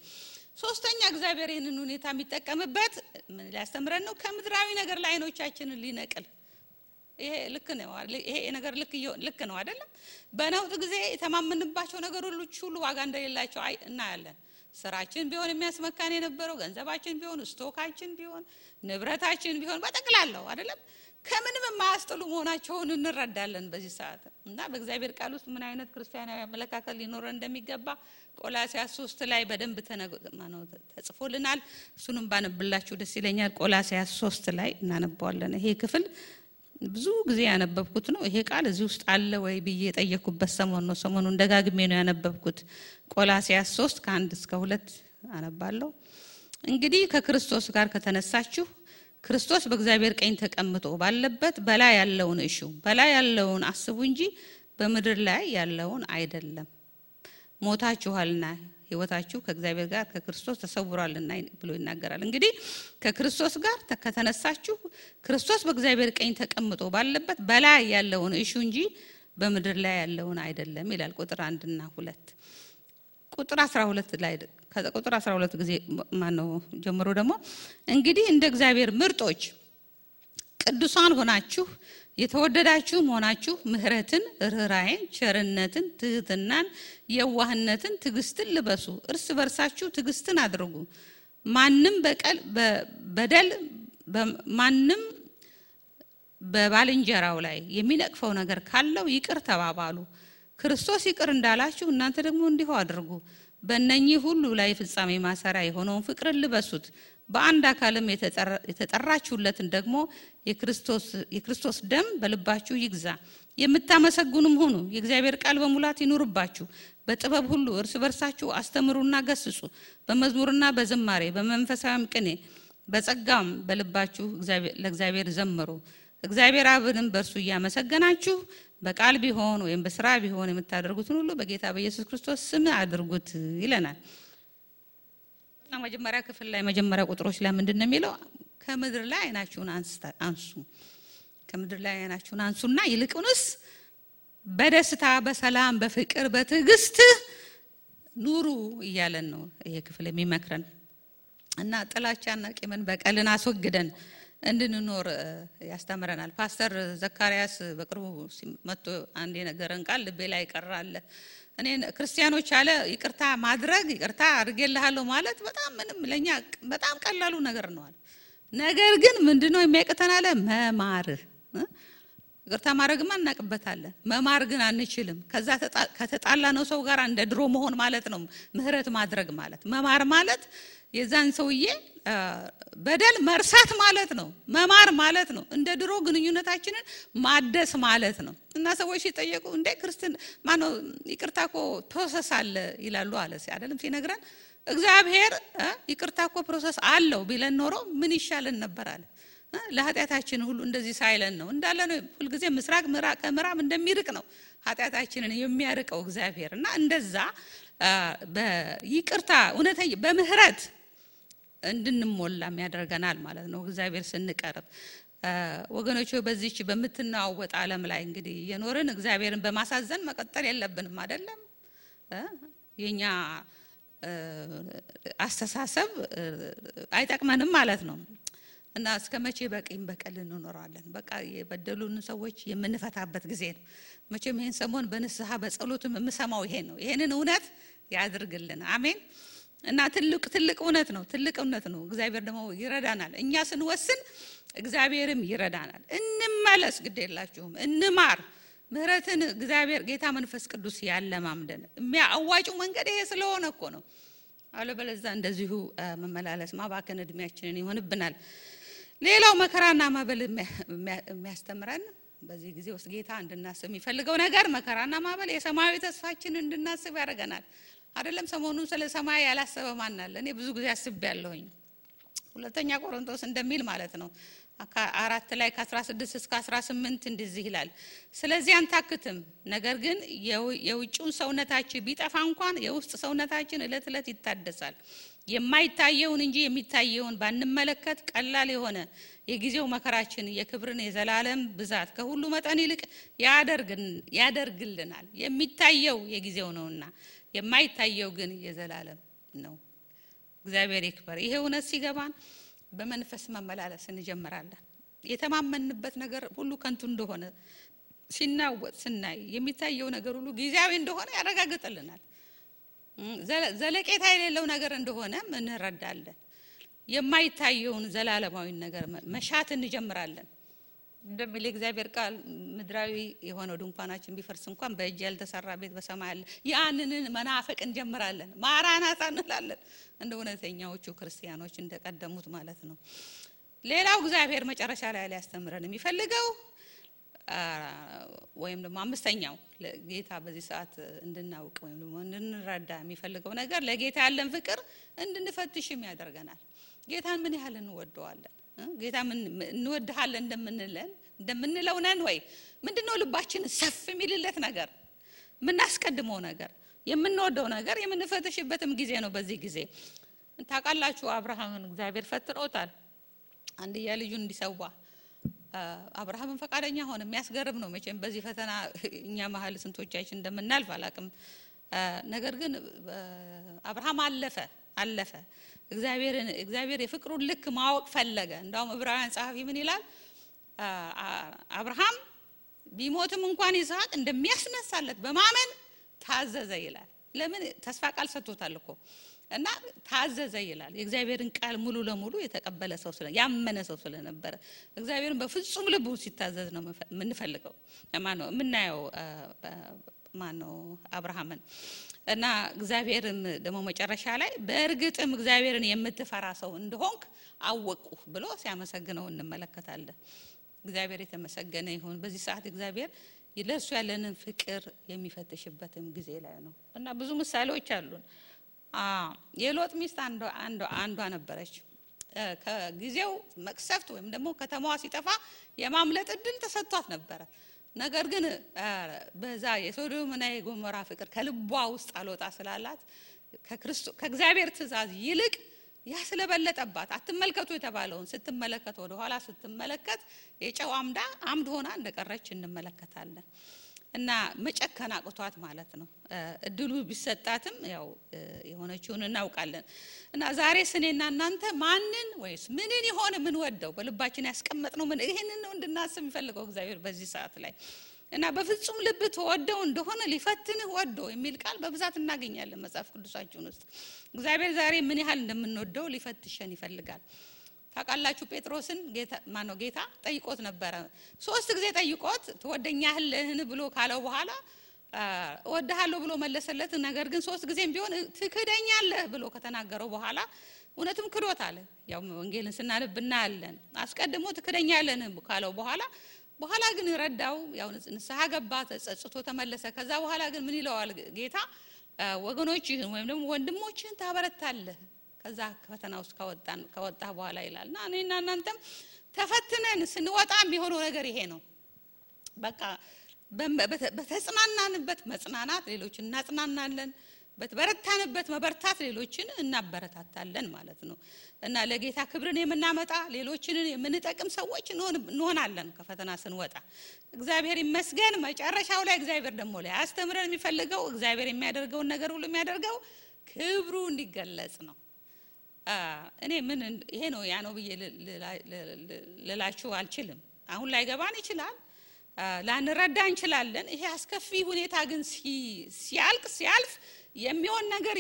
ሶስተኛ እግዚአብሔር ይህንን ሁኔታ የሚጠቀምበት ምን ሊያስተምረን ነው? ከምድራዊ ነገር ላይ አይኖቻችንን ሊነቅል። ይሄ ልክ ነው አይደለም? በነውጥ ጊዜ የተማመንባቸው ነገሮች ሁሉ ዋጋ እንደሌላቸው እናያለን። ስራችን ቢሆን የሚያስመካን የነበረው ገንዘባችን ቢሆን ስቶካችን ቢሆን ንብረታችን ቢሆን በጠቅላላው አይደለም ከምንም የማያስጥሉ መሆናቸውን እንረዳለን በዚህ ሰዓት። እና በእግዚአብሔር ቃል ውስጥ ምን አይነት ክርስቲያናዊ አመለካከት ሊኖረን እንደሚገባ ቆላስይስ 3 ላይ በደንብ ተጽፎልናል። እሱንም ባነብላችሁ ደስ ይለኛል። ቆላስይስ 3 ላይ እናነባዋለን። ይሄ ክፍል ብዙ ጊዜ ያነበብኩት ነው። ይሄ ቃል እዚህ ውስጥ አለ ወይ ብዬ የጠየቅኩበት ሰሞን ነው። ሰሞኑን ደጋግሜ ነው ያነበብኩት። ቆላስይስ 3 ከ1 እስከ 2 አነባለሁ። እንግዲህ ከክርስቶስ ጋር ከተነሳችሁ ክርስቶስ በእግዚአብሔር ቀኝ ተቀምጦ ባለበት በላይ ያለውን እሹ፣ በላይ ያለውን አስቡ እንጂ በምድር ላይ ያለውን አይደለም። ሞታችኋልና ሕይወታችሁ ከእግዚአብሔር ጋር ከክርስቶስ ተሰውሯልና ብሎ ይናገራል። እንግዲህ ከክርስቶስ ጋር ከተነሳችሁ ክርስቶስ በእግዚአብሔር ቀኝ ተቀምጦ ባለበት በላይ ያለውን እሹ እንጂ በምድር ላይ ያለውን አይደለም ይላል። ቁጥር 1 እና 2 ቁጥር 12 ላይ ከቁጥር 12 ጊዜ ማነው ጀምሮ ደግሞ እንግዲህ እንደ እግዚአብሔር ምርጦች ቅዱሳን ሆናችሁ የተወደዳችሁ ሆናችሁ ምህረትን፣ ርህራሄን፣ ቸርነትን፣ ትህትናን፣ የዋህነትን፣ ትዕግስትን ልበሱ። እርስ በርሳችሁ ትዕግስትን አድርጉ። ማንም በባልንጀራው ላይ የሚነቅፈው ነገር ካለው ይቅር ተባባሉ። ክርስቶስ ይቅር እንዳላችሁ እናንተ ደግሞ እንዲሁ አድርጉ። በእነኚህ ሁሉ ላይ ፍጻሜ ማሰሪያ የሆነውን ፍቅርን ልበሱት። በአንድ አካልም የተጠራችሁለትን ደግሞ የክርስቶስ ደም በልባችሁ ይግዛ። የምታመሰግኑም ሁኑ። የእግዚአብሔር ቃል በሙላት ይኑርባችሁ። በጥበብ ሁሉ እርስ በርሳችሁ አስተምሩና ገስጹ። በመዝሙርና በዝማሬ በመንፈሳዊም ቅኔ በጸጋም በልባችሁ ለእግዚአብሔር ዘምሩ። እግዚአብሔር አብንም በእርሱ እያመሰገናችሁ በቃል ቢሆን ወይም በስራ ቢሆን የምታደርጉትን ሁሉ በጌታ በኢየሱስ ክርስቶስ ስም አድርጉት ይለናል። እና መጀመሪያ ክፍል ላይ መጀመሪያ ቁጥሮች ላይ ምንድነው የሚለው? ከምድር ላይ አይናችሁን አንሱ። ከምድር ላይ አይናችሁን አንሱና ይልቁንስ በደስታ በሰላም በፍቅር በትዕግስት ኑሩ እያለን ነው ይሄ ክፍል የሚመክረን። እና ጥላቻና ቂምን በቀልን አስወግደን እንድንኖር ያስተምረናል። ፓስተር ዘካርያስ በቅርቡ መጥቶ አንድ የነገረን ቃል ልቤ ላይ ቀራለ። እኔ ክርስቲያኖች አለ ይቅርታ ማድረግ ይቅርታ አድርጌልሃለሁ ማለት በጣም ምንም ለኛ በጣም ቀላሉ ነገር ነው አለ። ነገር ግን ምንድነው የሚያቀተን አለ? መማር። ይቅርታ ማድረግማ እናቀበታለን፣ መማር ግን አንችልም። ከዛ ከተጣላ ነው ሰው ጋር እንደ ድሮ መሆን ማለት ነው ምህረት ማድረግ ማለት። መማር ማለት የዛን ሰውዬ በደል መርሳት ማለት ነው። መማር ማለት ነው እንደ ድሮ ግንኙነታችንን ማደስ ማለት ነው። እና ሰዎች ሲጠየቁ እንደ ክርስቲያን ማነው ይቅርታ እኮ ፕሮሰስ አለ ይላሉ አለ አይደለም ሲነግረን። እግዚአብሔር ይቅርታ እኮ ፕሮሰስ አለው ቢለን ኖሮ ምን ይሻለን ነበር አለ። ለኃጢአታችን ሁሉ እንደዚህ ሳይለን ነው እንዳለ ነው። ሁሉ ጊዜ ምስራቅ ከምዕራብ እንደሚርቅ ነው ኃጢአታችንን የሚያርቀው እግዚአብሔር። እና እንደዛ በይቅርታ እውነተኛ በምህረት እንድንሞላም ያደርገናል ማለት ነው እግዚአብሔር ስንቀርብ። ወገኖች በዚህች በመትናወጥ ዓለም ላይ እንግዲህ የኖርን እግዚአብሔርን በማሳዘን መቀጠል የለብንም አይደለም። የኛ አስተሳሰብ አይጠቅመንም ማለት ነው። እና እስከመቼ በቂም በቀል እንኖራለን? በቃ የበደሉን ሰዎች የምንፈታበት ጊዜ ነው። መቼም ይሄን ሰሞን በንስሐ በጸሎትም የምሰማው ይሄ ነው። ይሄንን እውነት ያድርግልን። አሜን። እና ትልቅ እውነት ነው። ትልቅ እውነት ነው። እግዚአብሔር ደግሞ ይረዳናል። እኛ ስንወስን እግዚአብሔርም ይረዳናል። እንመለስ፣ ግድ የላችሁም እንማር። ምህረትን እግዚአብሔር ጌታ መንፈስ ቅዱስ ያለማምደን የሚያዋጭው መንገድ ይሄ ስለሆነ እኮ ነው። አለበለዚያ እንደዚሁ መመላለስ ማባከን እድሜያችንን ይሆንብናል። ሌላው መከራና ማበል የሚያስተምረን በዚህ ጊዜ ውስጥ ጌታ እንድናስብ የሚፈልገው ነገር መከራና ማበል የሰማያዊ ተስፋችንን እንድናስብ ያደርገናል። አይደለም ሰሞኑን ስለ ሰማይ ያላሰበ ማን አለ? እኔ ብዙ ጊዜ አስቤያለሁኝ። ሁለተኛ ቆሮንቶስ እንደሚል ማለት ነው 4 ላይ ከ16 እስከ 18 እንደዚህ ይላል። ስለዚህ አንታክትም፣ ነገር ግን የውጭውን ሰውነታችን ቢጠፋ እንኳን የውስጥ ሰውነታችን እለት እለት ይታደሳል። የማይታየውን እንጂ የሚታየውን ባንመለከት ቀላል የሆነ የጊዜው መከራችን የክብርን የዘላለም ብዛት ከሁሉ መጠን ይልቅ ያደርግልናል። የሚታየው የጊዜው ነውና የማይታየው ግን የዘላለም ነው። እግዚአብሔር ይክበር። ይሄ እውነት ሲገባን በመንፈስ መመላለስ እንጀምራለን። የተማመንበት ነገር ሁሉ ከንቱ እንደሆነ ሲናወጥ ስናይ የሚታየው ነገር ሁሉ ጊዜያዊ እንደሆነ ያረጋግጥልናል። ዘለቄታ የሌለው ነገር እንደሆነ እንረዳለን። የማይታየውን ዘላለማዊ ነገር መሻት እንጀምራለን። እንደሚል እግዚአብሔር ቃል ምድራዊ የሆነው ድንኳናችን ቢፈርስ እንኳን በእጅ ያልተሰራ ቤት በሰማይ አለ። ያንን መናፈቅ እንጀምራለን፣ ማራናታ እንላለን፣ እንደ እውነተኛዎቹ ክርስቲያኖች እንደቀደሙት ማለት ነው። ሌላው እግዚአብሔር መጨረሻ ላይ ሊያስተምረን የሚፈልገው ወይም ደግሞ አምስተኛው ለጌታ በዚህ ሰዓት እንድናውቅ ወይም ደግሞ እንድንረዳ የሚፈልገው ነገር ለጌታ ያለን ፍቅር እንድንፈትሽም ያደርገናል። ጌታን ምን ያህል እንወደዋለን? ጌታ ምን እንወድሃለን እንደምንለው ነን ወይ? ምንድነው ልባችን ሰፍ የሚልለት ነገር፣ ምናስቀድመው ነገር፣ የምንወደው ነገር የምንፈትሽበትም ጊዜ ነው። በዚህ ጊዜ ታውቃላችሁ አብርሃምን እግዚአብሔር ፈትኖታል። አንድያ ልጁን እንዲሰዋ አብርሃምን ፈቃደኛ ሆነ። የሚያስገርም ነው መቼም በዚህ ፈተና እኛ መሀል ስንቶቻችን እንደምናልፍ አላቅም። ነገር ግን አብርሃም አለፈ። እግዚአብሔር የፍቅሩን ልክ ማወቅ ፈለገ። እንዳውም ዕብራውያን ጸሐፊ ምን ይላል? አብርሃም ቢሞትም እንኳን ይስሐቅ እንደሚያስነሳለት በማመን ታዘዘ ይላል። ለምን? ተስፋ ቃል ሰጥቶታል እኮ እና ታዘዘ ይላል። የእግዚአብሔርን ቃል ሙሉ ለሙሉ የተቀበለ ሰው ያመነ ሰው ስለነበረ እግዚአብሔርን በፍጹም ልቡ ሲታዘዝ ነው የምንፈልገው። ማነው የምናየው? ማነው? አብርሃምን። እና እግዚአብሔርም ደግሞ መጨረሻ ላይ በእርግጥም እግዚአብሔርን የምትፈራ ሰው እንደሆንክ አወቁ ብሎ ሲያመሰግነው እንመለከታለን። እግዚአብሔር የተመሰገነ ይሁን። በዚህ ሰዓት እግዚአብሔር ለሱ ያለንን ፍቅር የሚፈትሽበትም ጊዜ ላይ ነው እና ብዙ ምሳሌዎች አሉን። የሎጥ ሚስት አንዷ ነበረች። ከጊዜው መቅሰፍት ወይም ደግሞ ከተማዋ ሲጠፋ የማምለጥ እድል ተሰጥቷት ነበረ። ነገር ግን በዛ የሶዶምና የጎሞራ ፍቅር ከልቧ ውስጥ አልወጣ ስላላት ከእግዚአብሔር ትእዛዝ ይልቅ ያ ስለበለጠባት አትመልከቱ የተባለውን ስትመለከት ወደ ኋላ ስትመለከት የጨው አምድ ሆና እንደቀረች እንመለከታለን። እና መጨከን አቅቷት ማለት ነው። እድሉ ቢሰጣትም ያው የሆነችውን እናውቃለን። እና ዛሬ እኔና እናንተ ማንን ወይስ ምንን ይሆን ምን ወደው በልባችን ያስቀመጥነው ምን ይሄንን ነው እንድናስብ የሚፈልገው እግዚአብሔር በዚህ ሰዓት ላይ። እና በፍጹም ልብ ተወደው እንደሆነ ሊፈትንህ ወዶ የሚል ቃል በብዛት እናገኛለን መጽሐፍ ቅዱሳችን ውስጥ። እግዚአብሔር ዛሬ ምን ያህል እንደምንወደው ሊፈትሸን ይፈልጋል። ታውቃላችሁ ጴጥሮስን ጌታ ጠይቆት ነበረ። 3 ጊዜ ጠይቆት ትወደኛለህን ብሎ ካለው በኋላ እወድሃለሁ ብሎ መለሰለት። ነገር ግን 3 ጊዜም ቢሆን ትክደኛለህ ብሎ ከተናገረው በኋላ እውነትም ክዶታል። ያው ወንጌልን ስናነብና አለን አስቀድሞ ትክደኛለህን ካለው በኋላ ግን ረዳው። ያው ንስሐ ገባ፣ ተጸጽቶ ተመለሰ። ከዛ በኋላ ግን ምን ይለዋል ጌታ? ወገኖችህን ወይም ደግሞ ወንድሞችህን ታበረታለህ ከዛ ፈተና ውስጥ ከወጣ በኋላ ይላልና እኔና እናንተም ተፈትነን ስንወጣ የሚሆነው ነገር ይሄ ነው። በቃ በተጽናናንበት መጽናናት ሌሎችን እናጽናናለን፣ በተበረታንበት መበርታት ሌሎችን እናበረታታለን ማለት ነው። እና ለጌታ ክብርን የምናመጣ ሌሎችን የምንጠቅም ሰዎች እንሆናለን ከፈተና ስንወጣ። እግዚአብሔር ይመስገን። መጨረሻው ላይ እግዚአብሔር ደግሞ ላይ አስተምረን የሚፈልገው እግዚአብሔር የሚያደርገውን ነገር ሁሉ የሚያደርገው ክብሩ እንዲገለጽ ነው። እኔ ምን ይሄ ነው ያ ነው ብዬ ልላችሁ አልችልም። አሁን ላይ ገባን ይችላል፣ ላንረዳ እንችላለን። ይሄ አስከፊ ሁኔታ ግን ሲያልፍ የሚሆን ነገር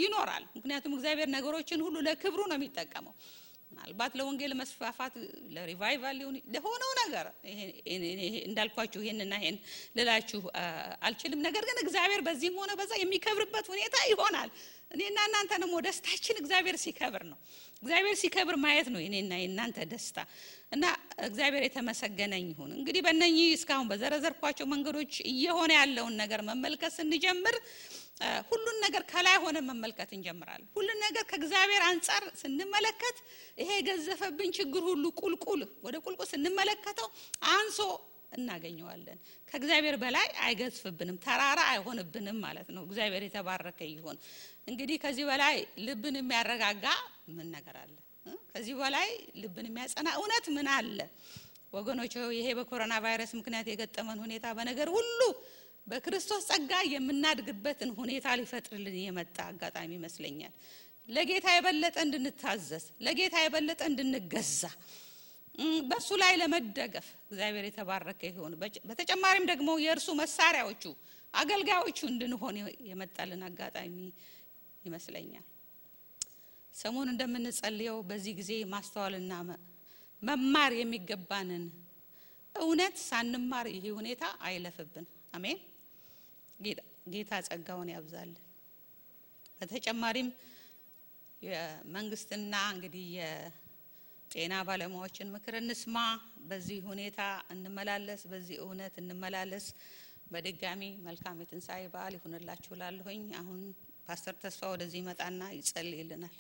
ይኖራል። ምክንያቱም እግዚአብሔር ነገሮችን ሁሉ ለክብሩ ነው የሚጠቀመው። ምናልባት ለወንጌል መስፋፋት ለሪቫይቫል ለሆነው ነገር እንዳልኳችሁ ይሄንና ይሄን ልላችሁ አልችልም። ነገር ግን እግዚአብሔር በዚህም ሆነ በዛ የሚከብርበት ሁኔታ ይሆናል። እኔና እናንተንም ደስታችን እግዚአብሔር ሲከብር ነው። እግዚአብሔር ሲከብር ማየት ነው እኔና እናንተ ደስታ። እና እግዚአብሔር የተመሰገነ ይሁን። እንግዲህ በእነኚህ እስካሁን በዘረዘርኳቸው መንገዶች እየሆነ ያለውን ነገር መመልከት ስንጀምር ሁሉን ነገር ከላይ ሆነ መመልከት እንጀምራለን። ሁሉን ነገር ከእግዚአብሔር አንፃር ስንመለከት ይሄ ገዘፈብን ችግር ሁሉ ወደ ቁልቁል ስንመለከተው አንሶ እናገኘዋለን። ከእግዚአብሔር በላይ አይገዝፍብንም፣ ተራራ አይሆንብንም ማለት ነው። እግዚአብሔር የተባረከ ይሁን። እንግዲህ ከዚህ በላይ ልብን የሚያረጋጋ ምን ነገር አለ? ከዚህ በላይ ልብን የሚያጸና እውነት ምን አለ? ወገኖች ይሄ በኮሮና ቫይረስ ምክንያት የገጠመን ሁኔታ በነገር ሁሉ በክርስቶስ ጸጋ የምናድግበትን ሁኔታ ሊፈጥርልን የመጣ አጋጣሚ ይመስለኛል። ለጌታ የበለጠ እንድንታዘዝ፣ ለጌታ የበለጠ እንድንገዛ፣ በሱ ላይ ለመደገፍ እግዚአብሔር የተባረከ ይሁን። በተጨማሪም ደግሞ የእርሱ መሳሪያዎቹ አገልጋዮቹ እንድንሆን የመጣልን አጋጣሚ ይመስለኛል። ሰሞኑን እንደምንጸልየው በዚህ ጊዜ ማስተዋልና መማር የሚገባንን እውነት ሳንማር ይሄ ሁኔታ አይለፍብን። አሜን። ጌታ ጸጋውን ያብዛልን። በተጨማሪም የመንግስትና እንግዲህ የጤና ባለሙያዎችን ምክር እንስማ። በዚህ ሁኔታ እንመላለስ፣ በዚህ እውነት እንመላለስ። በድጋሚ መልካም የትንሣኤ በዓል ይሁንላችሁ እላለሁኝ። አሁን ፓስተር ተስፋ ወደዚህ ይመጣና ይጸልይልናል።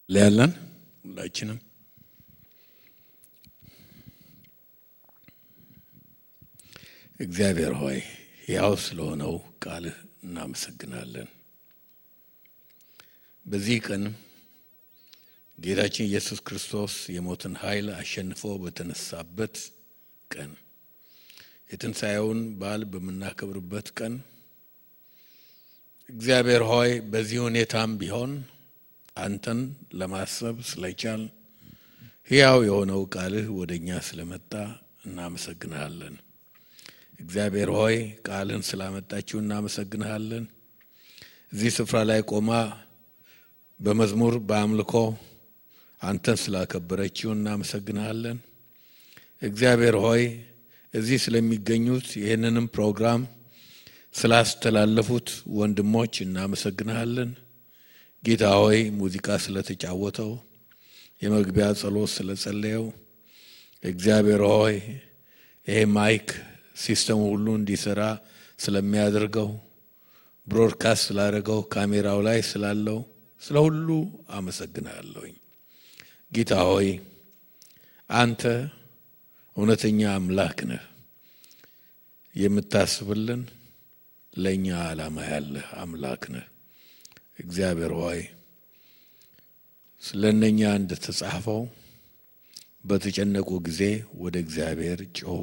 ለያለን ሁላችንም እግዚአብሔር ሆይ ያው ስለሆነው ቃልህ እናመሰግናለን። በዚህ ቀን ጌታችን ኢየሱስ ክርስቶስ የሞትን ኃይል አሸንፎ በተነሳበት ቀን የትንሣኤውን በዓል በመናከብርበት ቀን እግዚአብሔር ሆይ በዚህ ሁኔታም ቢሆን አንተን ለማሰብ ስለቻል ሕያው የሆነው ቃልህ ወደኛ ስለመጣ እናመሰግናለን። እግዚአብሔር ሆይ ቃልን ስላመጣችሁ እናመሰግናለን። እዚህ ስፍራ ላይ ቆማ በመዝሙር በአምልኮ አንተን ስላከበረችው እናመሰግናለን። እግዚአብሔር ሆይ እዚህ ስለሚገኙት ይህንንም ፕሮግራም ስላስተላለፉት ወንድሞች እናመሰግናለን። ጌታ ሆይ ሙዚቃ ስለተጫወተው የመግቢያ ጸሎት ስለጸለየው እግዚአብሔር ሆይ ይሄ ማይክ ሲስተም ሁሉ እንዲሰራ ስለሚያደርገው ብሮድካስት ስላደረገው ካሜራው ላይ ስላለው ስለ ሁሉ አመሰግናለሁኝ። ጌታ ሆይ አንተ እውነተኛ አምላክ ነህ። የምታስብልን ለኛ ዓላማ ያለህ አምላክ ነህ። እግዚአብሔር ሆይ ስለነኛ እንደተጻፈው በተጨነቁ ጊዜ ወደ እግዚአብሔር ጮኹ፣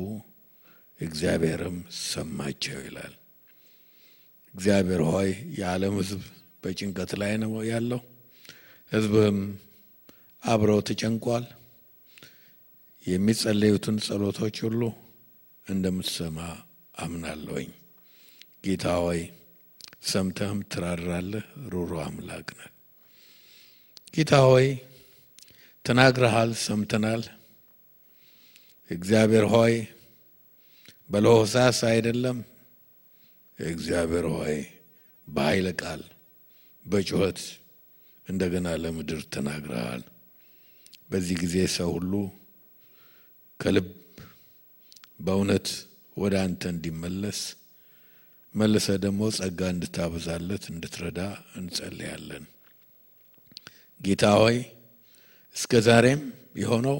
እግዚአብሔርም ሰማቸው ይላል። እግዚአብሔር ሆይ የዓለም ሕዝብ በጭንቀት ላይ ነው ያለው። ሕዝብም አብረው ተጨንቋል። የሚጸለዩትን ጸሎቶች ሁሉ እንደምትሰማ አምናለሁኝ። ጌታ ሆይ ሰምተህም ትራራለህ። ሩሩ አምላክ ነህ። ጌታ ሆይ ተናግረሃል፣ ሰምተናል። እግዚአብሔር ሆይ በለሆሳስ አይደለም። እግዚአብሔር ሆይ በኃይለ ቃል በጩኸት እንደገና ለምድር ተናግረሃል። በዚህ ጊዜ ሰው ሁሉ ከልብ በእውነት ወደ አንተ እንዲመለስ መልሰ ደግሞ ጸጋ እንድታበዛለት እንድትረዳ እንጸልያለን። ጌታ ሆይ እስከ ዛሬም የሆነው